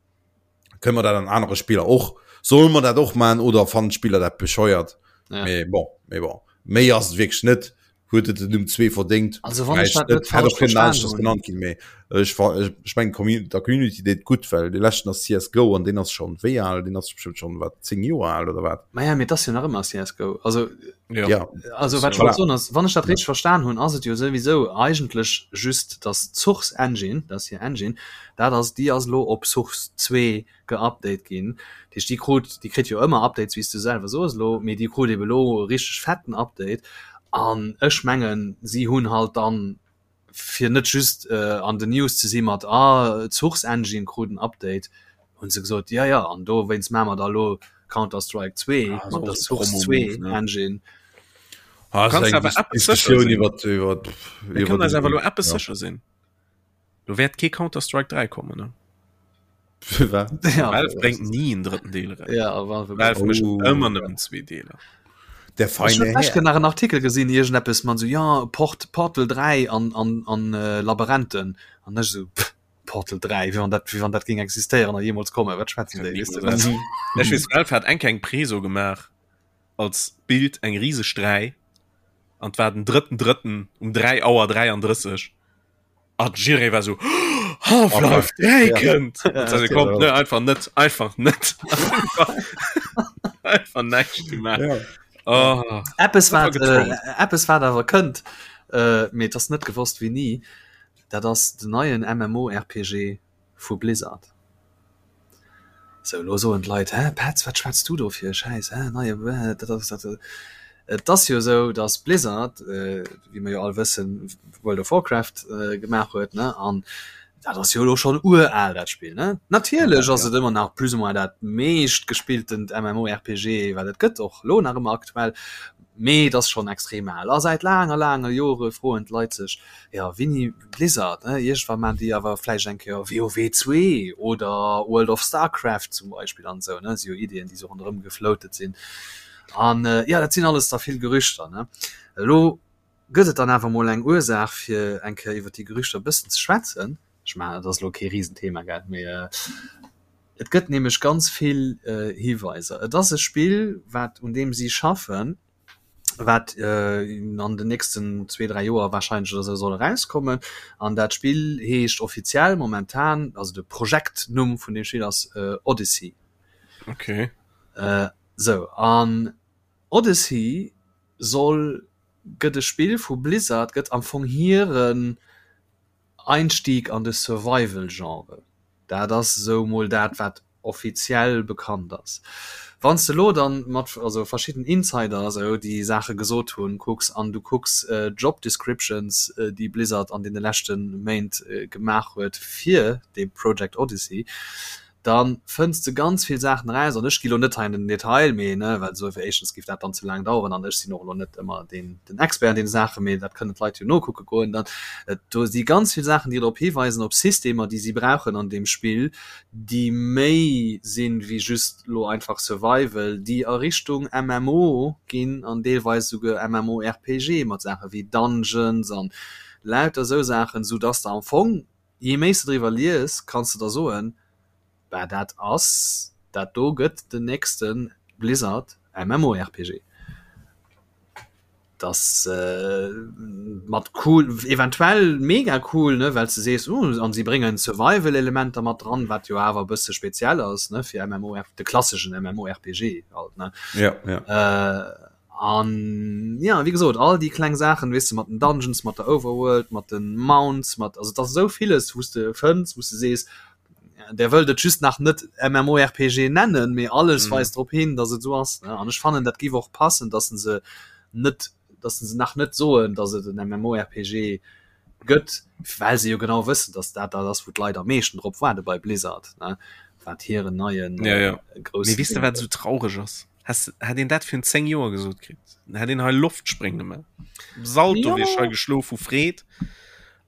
Kënne mer dat an anere Spiller och? Solle mer dat och maachen oder fannen d'Spiller dat bescheuert? Ja. Mee bon, mee bon. Méi ass et wierklech net. Huet et den Numm 2 verdéngt? Also wann ech Vläicht dat net net. Hätt falsch och kënnen verstan aneschters hunn. genannt ginn, mee ech fa ech ech mengen d'Commu der Community deet gutt, well dee leschten ass CSGO an deen ass schonn wéi al? Deen ass bestëmmt schonn, wat, 10 Joer al oder wat? Maja, mee et ass jo nach ëmmer CSGO. Also Ja. Ja. Also wat ech Voilà. wollt soen ass, wann ech dat richteg verstan hunn, ass et jo souwisou eigentlech just, dass d'Source Engine, dat ass hir Engine, dat ass déi ass elo op Source 2 geupdate ginn. Dat heescht déi krut, déi kritt jo ëmmer Updates, wéi s du selwer soos elo, mee déi krut ebe elo e richteg fetten Update. An ech mengen, si hunn halt dann, fir net just an den News ze si mat ah d'Source Engine krut en Update, hunn se gesot, jo jo, an dowéinst maache mer da elo Counter-Strike 2 Ah, mat der so Source Promo-Move, 2 ne? Engine. Ah, ass Kannst eng awer Dis eppes sécher Diskussioun sinn. iwwer iwwer Mir iwwer kënnen eis den awer elo eppes ja. sécher sinn. Do wäert kee Counter-Strike 3 kommen, ne? Firwat? Ja, Valve bréngt ni en drëtten Deel eraus. ja, Valve Valve mécht Oh. ëmmer nëmmen zwee Deeler. Der Ech hunn feine d'lescht Här. nach en Artikel gesinn, iergendeppes mat esou, ja, Port, Portal 3 an, an, an äh, Labyrinthen. An ech esou, pff, Portal 3, wéi wann dat, wéi wann dat géing existéieren a jeemools kommen. Wat schwätzen déi, weess de? Niemals. Ech weess, Valve hat eng Kéier eng Preso gemaach als Bild, eng riseg 3, an 't war den drëtten drëtten um 3 Auer 33. Ah, Jiré war so Half-Life 3 kënnt kommt ne einfach net einfach net einfach näischt gemaach ja. oh. Eppes wat äh, Eppes wat awer kënnt äh, mee et ass net gewosst wéini dat ass den neien MMORPG vu Blizzard. Sou, elo soen d'Leit, Hä, Petz, wat schwätz du do fir e Schäiss, hä, neie, dat ass dat. Et ass jo esou, datt Blizzard, wéi mer jo all wëssen, World of Warcraft gemaach huet, ne, an dat ass jo elo schonn ural, dat Spill, ne. Natierlech ass et ëmmer nach plus ou moins dat meescht gespilltent MMORPG, wat et gëtt, och elo nach ëmmer aktuell, mee et ass schonn extrem al. A säit laange, laange Jore froen d'Leit sech, Jo, wéini Blizzard, ne? Iergendwann maan déi awer vläicht eng Kéier WoW 2 oder World of Starcraft zum Beispill an esou, ne? Si jo Ideeën, déi sou ronderëm gefloatet sinn. An jo, dat sinn alles da vill Gerüchter, ne? Elo gëtt et dann awer mol eng Ursaach, fir eng Kéier iwwer déi Gerüchter e bëssen ze schwätzen. Ech mengen, dat ass elo kee Risenthema, gell? Mee et gëtt nämlech ganz vill Hiweiser. Et ass e Spill, wat, un deem si schaffen, wat an den nächsten zwee, dräi Joer wahrscheinlech oder esou soll erauskommen. An dat Spill heescht offiziell momentan, also de Projektnumm vun deem Spill ass Odyssey. Okay. Sou, an Odyssey soll, gëtt e Spill vu Blizzard, gëtt am Fong hiren Einstieg an de Survival-Genre. Dat ass esou mol dat, wat. Offiziell bekannt ass. Wann s de elo dann mat also verschidden Insider esou déi Saache gesot hunn kucks an du kucks Job Descriptions déi Blizzard an deene leschte Méint gemaach huet fir dee Project Odyssey, da fënns de ganz vill Saachen eraus an ech gi lo net hei an den Detail, mee ne well esou éischtens géif dat dann ze laang daueren an ech sinn och elo net ëmmer deen den Expert an deene Saachen, mee dat kënnen d'Leit jo nokucke goen dann. Do si ganz vill Saachen déi drop hiweisen op Systemer déi si brauchen an deem Spill, déi méi sinn wéi just lo einfach Survival, déi a Richtung MMO ginn an deelweis esouguer MMORPG mat Saache wéi Dungeons an lauter esou Saachen, sou dass de am Fong, jee méi s de driwwer lies, kanns de der soen, bah dat ass, dat do gëtt den nächste Blizzard MMORPG. Dass mat cool, eventuell mega cool, ne, well s de sees, uh, an si bréngen Survival-Elementer mat dran, wat jo awer e bësse speziell ass, ne, fir MMOR, de klasseschen MMORPG halt, ne. Ja, ja. Äh, an ja, wéi gesot, all déi kleng Saachen, weess de, mat den Dungeons, mat der Overworld, mat den Mounts, mat, also et ass esou villes, wou s de fënns, wou s de sees, Der wëllt et just nach net MMORPG nennen, mee alles mm. weist drop hin, dass et so ass. Ne? An ech fannen dat giff och passen, dass se net dass se nach net soen, dass et en MMORPG gëtt, well se jo genau wëssen, dass dat dat ass, wou d'Leit am meeschten drop waarde bei Blizzard, ne? Wat hiren neien ja, ja. Äh, groussen. Mee weess de wat sou traureg ass? Has, hätt een dat virun 10 Joer gesot kritt, hätt een hei Loftspréng gemaach. Salto ja. wier ech hei geschlof vu Freed.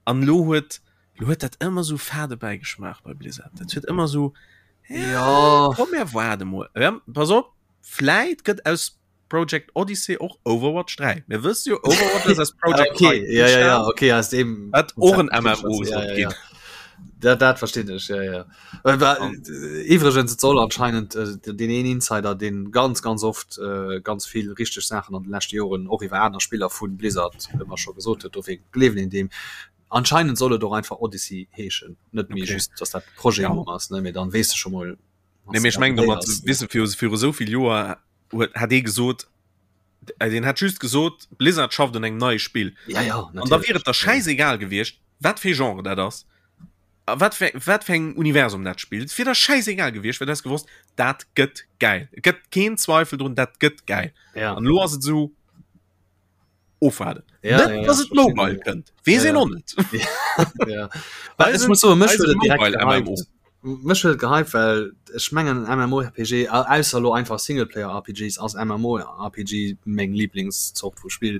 An lo huet Lo huet dat ëmmer sou fade Bäigeschmaach bei Blizzard. Dat huet ëmmer sou ja, komm mir waarde mol. Ja, pass op, vläit gëtt aus Project Odyssey och Overwatch 3. Mir wësse jo Overwatch ass aus Project okay. 3 ja, ja, ja, okay, aus dem wat och en MMO ja, ja, ja. Dat, dat verstinn ech ja, ja. Äh, Iwwregens et soll anscheinend äh, den een Insider den ganz ganz oft äh, ganz vill richteg Saachen an den leschte Joren och iwwer aner Spiller vun Blizzard ëmmer scho gesot huet, dofir gleewen een deem. Anscheinend soll et och einfach Odyssey heeschen, net méi okay. just dass dat Projet ja. ass ne, mee dann weess de scho mol. Nee, mee ech mengen domat weess de viru viru esou vill Joer huet hat ee gesot äh, deen hat just gesot Blizzard schafft un engem neie Spill. Ja, ja, an da wier et der schäisegal gewiescht, wat fir Genre dat ass a wat fir wat fir engem Universum dat spillt. Et wier der schäisegal gewiescht, well du häss gewosst, dat gëtt gäil. Et gëtt keen Zweifel drun, dat gëtt gäil. Ja. An elo ass et esou. Ofwaarden. Ja, Net, ja, ja, dass et mobile kënnt. Weess Ja, een ja. och net. Ja. Well ech muss soen, mech huet et direkt Mobile MMO. gehypt. Mech huet et gehypt, well ech mengen MMORPG, au- ausser elo einfach Singleplayer-RPGs, ass MMORPG meng Lieblingszort vu Spill.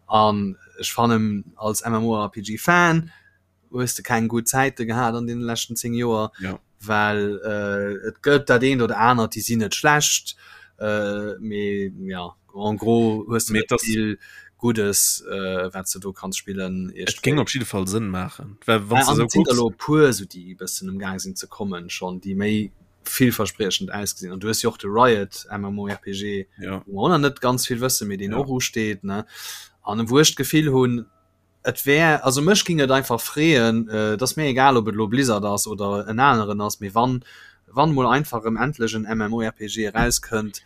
An ech fannen als MMORPG-Fan, hues de keng gutt Zäite gehat an deene leschten 10 Joer, ja. well äh, et gëtt dat eent oder anert, déi sinn net schlecht, äh, mee ja, en gros hues de net vill Guddes, äh, wat du do kanns spillen. Et géing op jidde Fall Sënn maachen. Well wann du sou kucks. Elo puer sou déi e bëssen um Gaang sinn ze kommen schonn, déi méi villverspriechend ausgesinn. An du hues jo och de Riot MMORPG, ja. wou mer och nach net ganz vill wëssen, mee deen ja. och usteet, ne? An wou ech d'Gefill hunn, Et wär, also mech ging et einfach freeën, et ass mir egal ob et elo Blizzard ass oder en aneren ass, mee wann wann mol einfach erëm endlech en MMORPG erauskënnt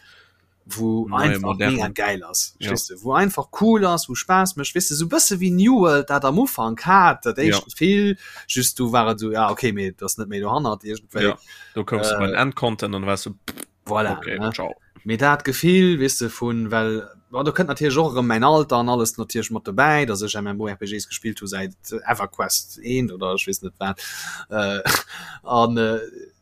wou einfach mega gäil ass, verstees de, wou einfach cool ass, wou Spaass mécht, weess de, sou bësse wéi New World dat am Ufank hat, dat éischt Gefill, just du war et sou, ja okay, mee et ass net méi dohannert iergendwéi. Jo, do koums de bei den Endcontent an du waars sou pff. Voilà, okay, ne? ciao. Mee dat Gefill, weess de, vun, well, bon, do kënnt natierlech och erëm mäin Alter an alles natierlech mat dobäi, dass ech MMORPGs gespillt hu säit EverQuest 1 oder ech weess net wat. Äh, an, äh,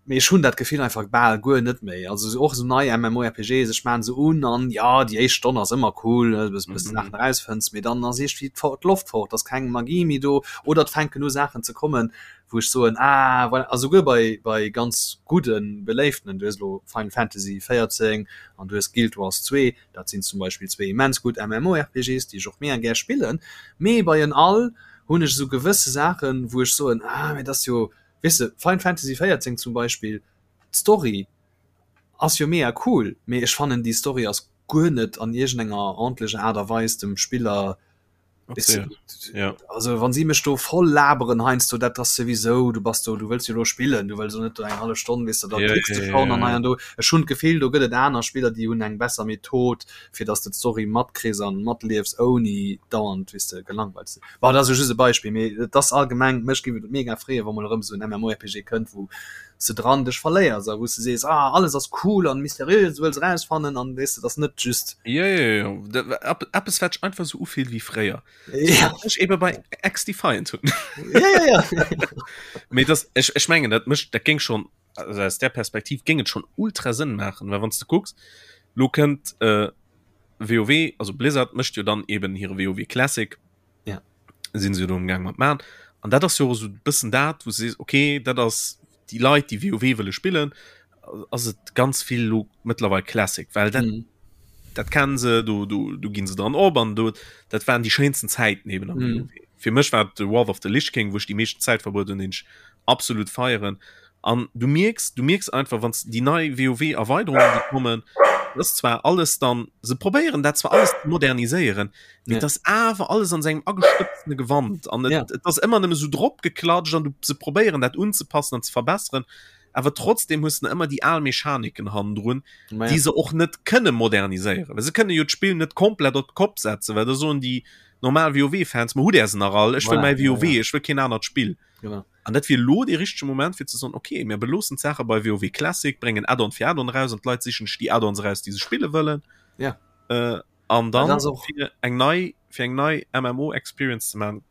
mee ech hunn dat Gefill einfach bal guer net méi. Also och esou nei MMORPGs, ech maan se un an ja, déi éischt Stonn ass ëmmer cool, ne, bis bis de Saachen erausfënns, mee dann ass iergendwéi d'Loft fort, ass keng Magie méi do oder et fänken u Saachen ze kommen, wou ech soen, ah voilà, a souguer bei, bei ganz gudden, beléiftenen, du hues elo Final Fantasy 14 an du hues Guild Wars 2, dat sinn zum Beispill zwee immens gutt MMORPGs, déi ech och mega gär spillen, mee bei en all hunn ech esou gewësse Saachen, wou ech soen, ah mee dat ass jo, weess de, Final Fantasy 14 zum Beispill, d'Story ass jo mega cool, mee ech fannen déi Story ass guer net an iergendenger ordentlecher Aart a Weis dem Spiller. Okay. Ja. Also wann sie mech do voll laberen heiansdo dat ass souwisou du bass do du wëlls jo lo spillen du wëlls jo net do eng hallef Stonn weess de da ja, klickst du ja, schon an ja, hei an do. Ech hunn d'Gefill do gëtt et aner Spiller déi hunn eng besser Method fir dass de d'Story matkriss an matliefs ouni dauernd weess de gelangweilt ze sinn. Bon dat ass jo just e Beispill mee et ass allgemeng mech géif et mega freeë wa mol erëm esou en MMORPG kënnt wou s de dran dech verléiers a wou s de sees ah alles ass cool an mysteriös du wëlls erausfannen an weess de dass net just Jo, jo, jo. Eppes wat sech einfach esou ufillt wéi fréier. Ja. Ech ebe bei XDefiant hunn. Ja, ja, ja. Mee das, ech, ech mengen dat mécht dat géing schon also aus der Perspektiv géing et schon ultra Sënn maachen, well wann s de kucks, lo kënnt äh, WoW, also Blizzard mécht jo dann eben hire WoW Classic. Ja. Sinn se jo do am Gaang mat man. An dat ass jo och esou bëssen dat, wou s de sees, okay, dat ass déi Leit, déi WoW wëlle spillen, ass et ganz vill lo mëttlerweil Classic, well dat, mm. dat kennen se, do, do, do ginn se dran op an do, dat waren déi schéinsten Zäiten eben am mm. WoW. Fir mech war de Wrath of the Lich King, wou ech déi meeschten Zäit verbruet hunn, den ech absolut feieren. An du mierks, du mierks einfach, wann déi nei WoW-Erweiterungen, déi kommen, das ist zwar alles dann, se probéieren dat zwar alles ze moderniséieren, mee ja. das awer alles an sengem agestëbsene Gewand an et, ja. et ass ëmmer nëmme so drop geklatscht an du se probéieren dat unzepassen an ze verbesseren awer trotzdem hues du ëmmer déi al Mechaniken hannendrun, ja. déi se och net kënne moderniséieren. Well se kënne jo d'Spill net komplett op d'Kopp setzen, well da soen déi normal WoW-Fans, ma hutt Är se nach all, ech wëll mäi WoW, ja, ja. ech wëll keen anert Spill. Genau. An dat wier lo dee richtege Moment fir ze soen, okay, mir beloossen d'Saache bei WoW Classic, bréngen Add-on fir Add-on eraus an d'Leit sichen sech déi Add-ons eraus, déi se spille wëllen. Ja. Äh, an dann fir eng nei fir eng nei MMO Experience ze man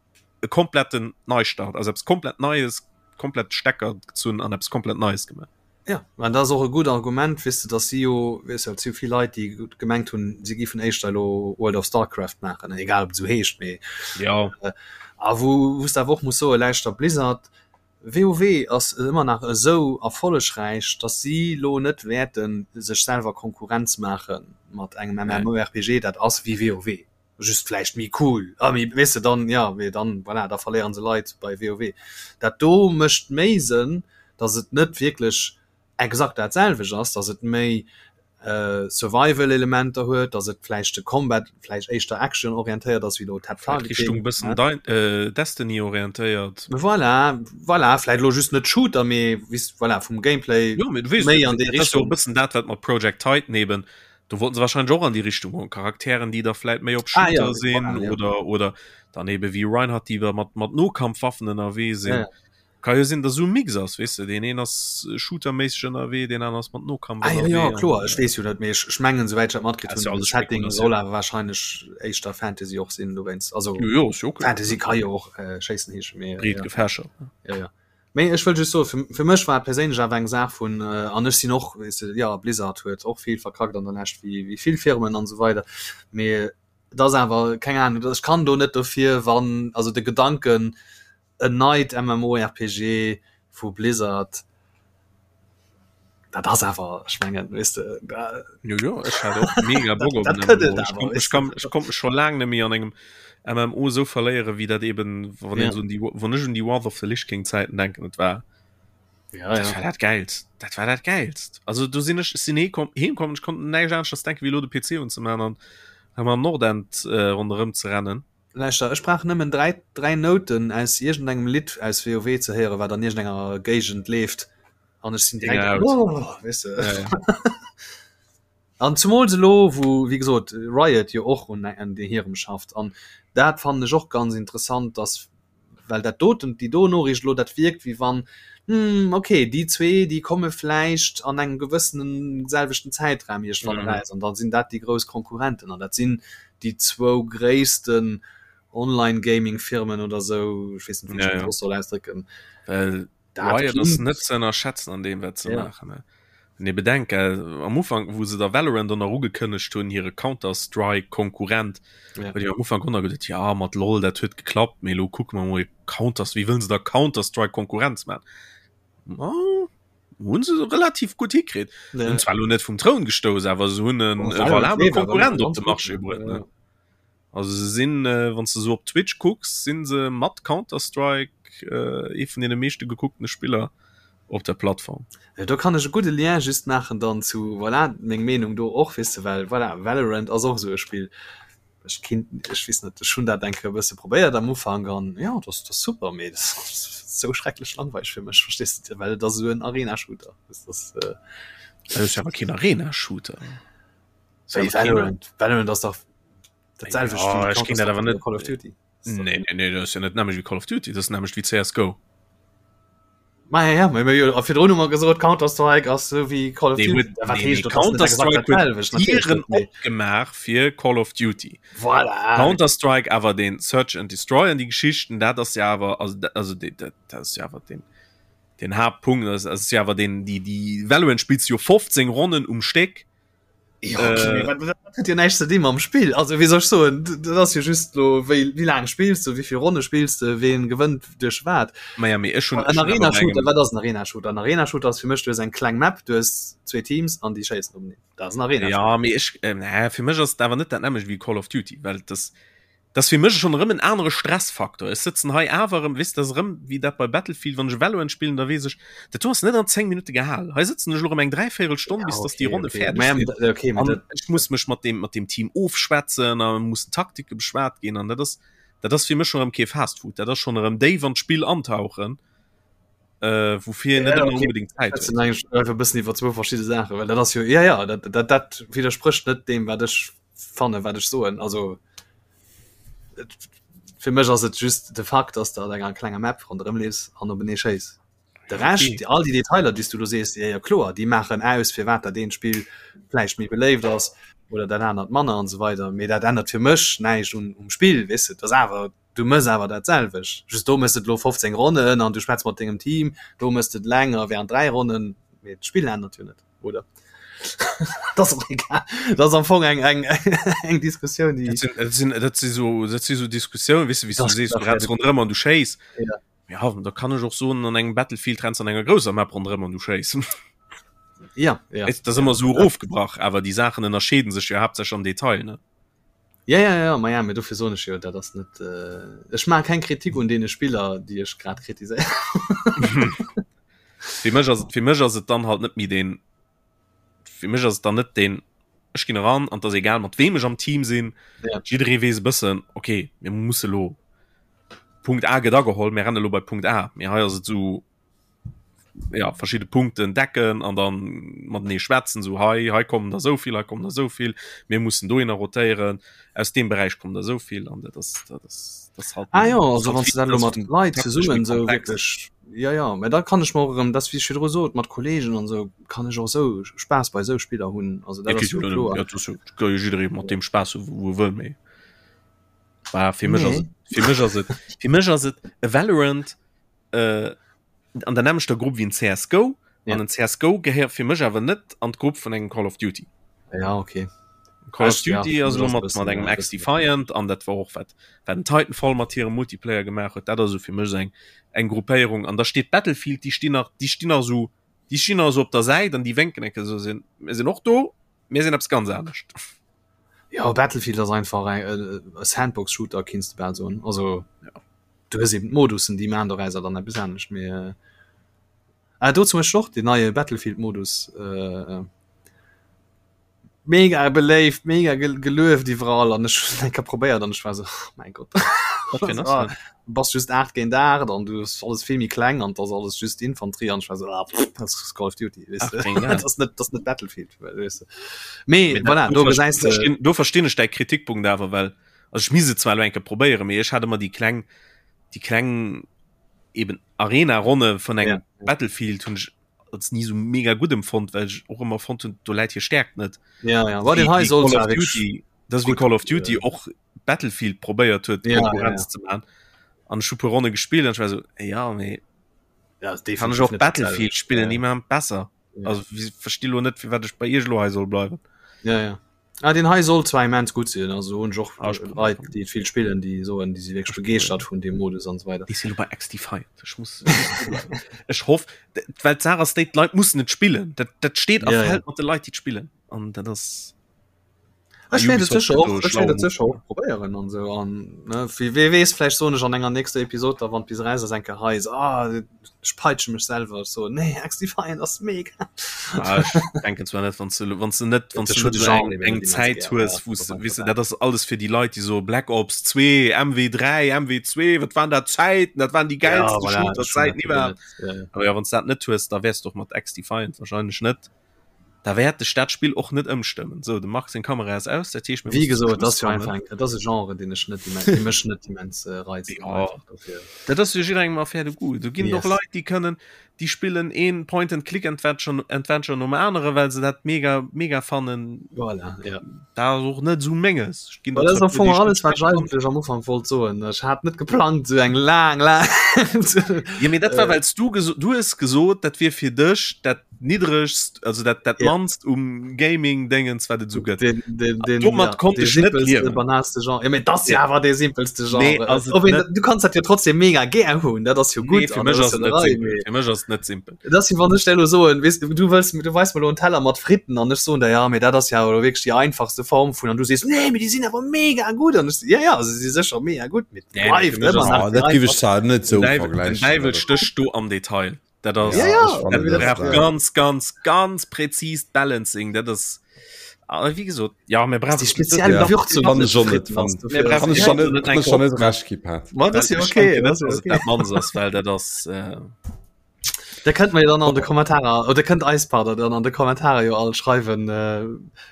e kompletten Neistart also eppes komplett Neies komplett Stecker gezunn an eppes komplett Neies gemaach. Ja, an dat ass och e gutt Argument, weess de, datt si jo, weess de, et si jo vill Leit, déi gemengt hunn, si géifen éischter elo World of Starcraft maachen, egal ob et esou heescht, mee ja. A wou wou s de awer och muss soen, lauschter, Blizzard, WoW ass ëmmer nach esou erfollegräich, datt si lo net wäerte sech selwer Konkurrenz maache mat engem MMORPG, dat ass wéi WoW, just vläicht méi cool a méi, weess de, dann, jo, mee dann, voilà, da verléiere se Leit bei WoW. Dat do mécht méi Sënn, datt et net wierklech exakt dat selwecht ass, datt et méi Survival-Elementer huet, datt et vläicht de Combat vläicht éischter Action-orientéiert ass wéi elo Tab Targeting. Richtung bëssen äh, Destiny orientéiert. Voilà, voilà, vläicht elo just net Shooter, mee wis voilà, vum Gameplay jo, mee du weess, méi an déi Richtung. E bëssen dat wat mat Project Titan eben, do wollten se wahrscheinlech och an déi Richtung goen, Charakteren déi da vläicht méi op Shooter ah, ja, sinn voilà, ja. oder oder dann ebe wéi Reinhardt déi mat mat Nokampfwaffen ënnerwee sinn. Ja, ja. Ka jo sinn, dass esou e Mix ass, weess de, deen een ass shooterméisseg ënnerwee, deen aneren ass mat Nokampf Ah, ja, ja, kloer, ech weess jo net, mee ech, ech mengen, souwäit ech dat matkritt hunn, de Setting soll awer wahrscheinlech éischter Fantasy och sinn dowéinst. Also, jo, jo, ass jo okay. Fantasy ka jo och äh, schéissen heeschen, mee Breet ja. gefächert. Ja, ja. Mee ech wëll just soen, fir, fir mech war et perséinlech awer eng Saach vun, äh, an ech sinn och, weess de, ja, Blizzard huet och vill verkackt an der Lescht, wéi, wéi vill Firmen an esou weider, mee et ass awer, keng Ahnung, ech kann do net dofir, wann, also de Gedanken, en neit MMORPG vu Blizzard, dat ass awer, ech mengen, weess de, da. Jo, jo, ech hat och mega Bock op en MMO. Ech konnt, ech kann, ech konnt mech scho laang net méi an engem MMO esou verléieren, wéi dat eben, wann een Ja. esou un déi, wann ech un déi Wrath of the Lich King Zäiten denken, et war, Ja, dat ja. war dat Gäilst, dat war dat Gäilst. Also do sinn ech, ech sinn heekomm, heemkomm, ech konnt näischt aneschters denken, wéi elo de PC unzemaachen an hei am Nordend äh, ronderëm ze rennen. Lauschter, ech brauch nëmmen 3, 3 Nouten aus iergendengem Lidd aus WoW ze héieren, wat an iergendenger Géigend leeft, an ech sinn direkt, oh, weess de. Ja, ja. An zumools elo, wou, wéi gesot, Riot jo och un, un hirem schafft. An dat fannen ech och ganz interessant, dass, well dat doten, déi do Noriicht elo, dat wierkt, wéi wann, hm, okay, déi zwee, déi komme vläicht an engem gewëssenen selwechten Zäitraum iergendwann Mhm. eraus, an da sinn dat déi grouss Konkurrenten. An dat sinn déi zwou gréissten Online-Gaming-Firmen oder sou, ech weess net, wéi ech Ja, dat ja. soss soll ausdrécken. Well Dat Riot ass klingt net ze ënnerschätzen an deem, wat se ja. maachen. Ne? Wann ee bedenkt, gell, am Ufank, wou se da Valorant dann nach ugekënnegt hunn, hire Counter-Strike-Konkurrent, Ja. huet een am Ufank och nach geduet, ja, mat LOL, dat huet geklappt, mee elo kucke mer mol, Counter, wéi wëllen se da Counter-Strike Konkurrenz maachen? Ma, hunn se relativ gutt hikritt. Ja. Hunn zwar elo net vum Troun gestouss, awer se hunn en Oh, e Valorant valabele leeft awer nach Konkurrent op ganz de gutt, Marché ne? bruet, Ja, ne? ja. Also se sinn, wann s de sou op Twitch kucks, sinn se mat Counter-Strike ee vun deene meeschte gekucktene Spiller op der Plattform. Do kann ech e gudde Lien just maachen dann zu, voilà, meng Meenung do och, weess de, well voilà, Valorant ass och esou e Spill. Ech kinnt, ech weess net, ech hunn dat eng Kéier e bësse probéiert am Ufank an jo, dat ass, dat ass super, mee dat ass esou schrecklech langweileg fir mech, verstees de, well et ass esou en Arena-Shooter. Dat ass, äh, Dat ass jo awer keen Arena-Shooter. Wéi Valorant, Valorant ass dach dat selwecht Ja, wéi ech ginn dat awer Counter-Strike net- oder Call of Duty. Nee, nee, nee, dat ass jo net nämmlecht wéi Call of Duty, dat ass nämmlecht wéi CSGO. Ma ja, ja, ma jo, a virdrun hu mer gesot, Counter-Strike ass sou wéi Call of Nee, Duty. huet, Wat nee, heescht nee, dat? Ass net exakt Counter-Strike huet dat selwecht, natierlech Tieren net, mee opgemaach fir Call of Duty. Voilà. Counter-Strike awer den Search and Destroy an déi Geschichten, dat ass ja awer, also, dat- also dat, dat dat ass ja awer den, den Haaptpunkt, das ass ja awer den, déi, déi Valorant spillst du jo 15 Ronnen um Stéck. Ja, okay, äh, dat huet jo näischt ze di mam Spill. Also wéi soll ech soen, dat ass jo just lo wéi wéi laang spills du, wéi vill Ronne spills du, ween gewënnt duerch wat. Ma ja, mee ech hunn En Arena-Shooter, wat ass en Arena-Shooter? En Arena-Shooter ass fir mech, du hues eng kleng Map, du hues zwee Teams an déi schéissen openeen. Dat ass en Arena-Shooter. Ja, mee ech, äh, nee, fir mech ass et awer net dat nämmlecht wéi Call of Duty, well das Dat ass fir mech schonn erëm en anere Stressfaktor. Ech sëtzen hei awer erëm, weess, dat ass erëm wéi dat bei Battlefield, wann ech Valorant spillen, da weess ech, dat do ass net an 10 Minutte gehal. Hei sëtzen ech elo erëm eng dräivéierel Stonn, bis dass déi Ronne fäerdeg sinn. An ech muss mech mat deem, mat deem Team ofschwätzen a mussen Taktike beschwat ginn an dat ass, dat ass fir mech schonn erëm kee Fastfood. Dat ass schonn erëm déif an d'Spill antauchen, woufir een net ëmmer onbedéngt Zäit huet. E bëssen iwwer zwou verschidde Saachen, well dat ass jo, jo, jo, dat, dat, dat widdersprécht net deem, wat ech fannen wat ech soen also fir mech ass et just de Fakt dass de an enger klenger Map ronderëm leefs an openee schéiss de Rescht okay. all déi Detailer déi s du do sees ja, ja kloer déi maachen aus firwat dat eent Spill vläicht méi beléift ass oder dat anert manner an esou weider mee dat ännert fir mech näischt un um Spill weess de et ass awer du mëss awer dat selwecht just do mëss de et lo 15 Ronnen an du schwätz mat dengem Team do mëss de et länger während 3 Ronnen mee d'Spill ännert jo net oder das ist egal das ist am Fong eng eng eng Diskussion die dat sinn, dat sinn, dat si so dat si so Diskussioun wis du wéi du sees du renns ronderëm an du schéiss ja. ja da kann ech och soen an engem Battlefield renns an enger grousser Map ronderëm an du schéiss ja ja das ist immer so erofgebrach awer die Sachen ënnerscheeden sech jo haaptsächlech am Detail ne Ja, ja, ja, ma ja, mee dofir soen ech jo, dat ass net, äh, ech maache keng Kritik un deene Spiller, déi ech grad kritiséieren. Fir mech ass et, fir mech ass et dann halt net méi deen, fir mech ass et dann net deen, ech ginn eran an et ass egal mat weem ech am Team sinn, Ja. jidderee weess e bëssen, okay, mir musse lo, Punkt A gëtt ageholl, mir renne lo bei Punkt A, mee hei ass et esou, ja verschiedene Punkten decken an dann matenee schwätzen so hei hei kommen der so viel hei kommen der so viel mir mussen dohinner rotéieren aus dem Bereich kommen der so viel an dat das dat das das halt ah ja also wann du dann lo mat Leit zesummen so wirklich ja ja mä da kann ech mer och erëm das wéi ech virdru sot mat Kollegen an sou kann ech och sou Spaass bei sou Spiller hunn also dat ass jo kloer ja, das ka jo jidderee mat dem Spaass hu wou e wëll méi war fir mech ass nee. fir mech ass et fir mech ass et e Valorant äh, an der nämmlechter Grupp wéi en CSGO ja. an en CSGO gehéiert fir mech awer net an d'Grupp vun engem Call of Duty. Ja okay. Call of Duty ass elo mat mat engem XDefiant an dat war och wat wat den Titanfall mat hirem Multiplayer gemaach huet, dat ass esou fir mech eng eng Gruppéierung an da steet Battlefield, déi stinn nach déi stinn nach esou déi stinn nach esou op der Säit an déi wénken enke esou sinn mir sinn och do, mir sinn eppes ganz anescht. Ja Battlefield ass einfach eng e Sandbox-Shooter kinns de bal soen also. Ja. Du hues eben d'Modussen, déi maachen dorausser dann eppes anescht, mee äh, ah, do zum Beispiel och den neie Battlefield-Modus äh, mega beléift, mega gel gelueft iwwerall an ech hunn eng Kéier probéiert an ech war sou, oh mäin Gott. Wat fir en ass dat? Du bass just 8 géint 8 an du ass alles vill méi kleng an 't ass alles just Infanterie an ech war sou, ah, pff, dat ass Call of Duty, weess de. 8 géint 8. Dat ass net, dat ass net Battlefield, weess de. Mee Mee dat, voilà, do do verst- gesäis de. verstinn, do verstinn ech däi Kritikpunkt awer, well Also ech misst et zwar elo eng Kéier probéieren, mee ech hat ëmmer déi kleng, déi kleng eben Arena-Ronne vun engem Ja. Battlefield hunn ech als ni sou mega gutt empfonnt, well ech och ëmmer fonnt hunn, do läit hir Stäerkt net. Ja, ja. War den hei Wéi soll Call zwar of wirklich Duty, dat ass wéi gut, Call of Duty äh, och Battlefield probéiert huet, Ja, ja, Konkurrenz ja. ze man. An ech hu puer Ronne gespillt an ech war sou, ja, mee Ja, ist kann ech definitiv och net Battlefield dasselbe. spillen, Ja, déi maachen et besser. ja. Also versti lo net, firwat ech bei iech elo hei soll bleiwen. Ja, ja. Ah, den hei soll zwar immens gutt sinn, also hunn ech och Ah, ech Leit, déi et vill spillen, déi soen, déi si wierklech begeeschtert vun deem Modus an esou weider. Ech sinn elo bei XDefiant. Ech muss, ech muss do bleiwen. Ech hoff, well d'Saach ass déi, d'Leit mussen et spillen. Dat, dat steet a Ja, ja. fält mat de Leit, déi et spillen. An dat ass. Ech wäert et sécher och, ech wäert et sécher och probéieren an esou an ne wie wee weess vläicht soen ech an enger nächster Episod da wann bis eraus ass eng Kéier hei esou ah ech peitsche mech selwer ech soen nee XDefiant ass mega. Ah, ech denken zwar net wann du wann du net wann du net eng, eng Zäit hues wou du weess du dat ass alles fir déi Leit déi so Black Ops 2 MW3 MW2 wat waren dat Zäiten dat waren déi gäilste ja, voilà, Shooter-Zäiten iwwerhaapt. Ja, ja. Aber ja wann du dat net hues da wäers du och mat XDefiant wahrscheinlech net Da wäert dech dat Spill och net ëmstëmmen. Sou, dem Marc seng Kamera ass aus, dat heescht mir Wéi gesot, dat ass jo einfach eng, dat ass e Genre, deen ech net immens, dee mech net immens reizt. Jo, dat ass jo jidderengem Affaire de goût. Do ginn et och Leit, déi kënnen, déi spillen een Point-and-Click-Adventure Adventure nom anere, well se dat mega, mega fannen. Voilà, ja. Dat ass och net esou menges. Ech ginn der zwar puer, déi ech net alles, wat ech eigentlech am Ufank wollt soen. Ech hat net geplangt, esou eng laang, laang. Jo, mee dat war, well s du geso, du hues gesot, dat wier fir dech dat niddregst also dat dat ja. mannst um Gaming Dingens wat et so gëtt den, den, den, Domat ja, konnte ich net liewen banalste Genre ja, das ja war der simpelste Genre nee, also net, du kannst dat ja trotzdem mega gär hunn dat ass jo gut nee, fir mech ass net simpel fir mech ass net simpel das wann ech lo so weißt, du willst du weißt mal en Teller mat Fritten an ech so der ja mir dat das ja oder wirklich die einfachste Form vun an du siehst nee mir die sind aber mega gut an ich, ja ja also sie sicher mega gut mit nee, net so vergleichen stech du am Detail Dat ass ja, ja. dat brauch ganz ganz ganz präzist Balancing dat ass ah, wie gesot ja mir brauchen die speziell ja. Würzung kann ich schon net kann ich schon net kann ich schon net recht gi Pat Ma, das ist okay das ist okay. dat man ass well dat ass äh, Da kënnt mir dann an de Kommentarer oder kënnt eis pardon dann an de Kommentarer jo all schreiwen äh,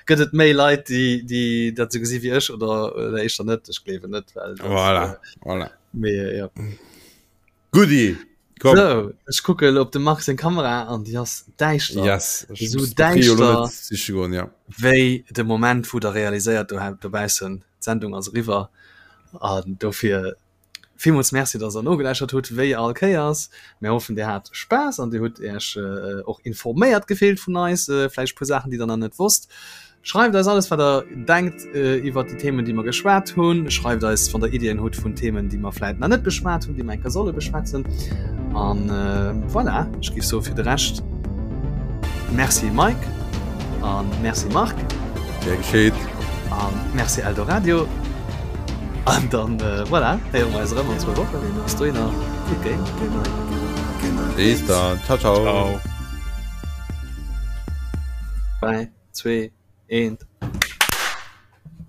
gëtt et méi Leit déi déi dat sou gesi wéi ech oder oder éischter net ech gleewen net well das, voilà. äh, voilà. mee, ja. Goodie. Komm. So, ech kucke op de Marc seng Kamera an déi ass däischter. Yes. Ech Esou muss d'Batterie elo däischter net siche goen, ja. wéi de Moment, wou der realiséiert do dobaussen, d'Sendung ass eriwwer. An dofir villmools Merci, dass der nogeläuschert hutt, wéi all Kéiers. Mir hoffen, dir hat Spaass an dir hutt Iech och informéiert gefillt vun eis, vläicht e puer Saachen, déi der nach net wosst. Schreift eis alles wat der denkt iwwert déi Themen déi mer geschwat hunn. Schreift eis wann der Iddien hutt vun Themen déi mer vläit nach net beschwat hunn, déi mer eng Kéier solle beschwätzen. An voilà, ech géif soe fir de Rescht Merci Mike an Merci Marc. Gär geschéet. An Merci Eldoradio. An dann voilà, héiere mer eis erëm an zwou Wochen. Bis dohinner, gutt Game. Bis dann, ciao ciao. Ciao. 3, 2, 1.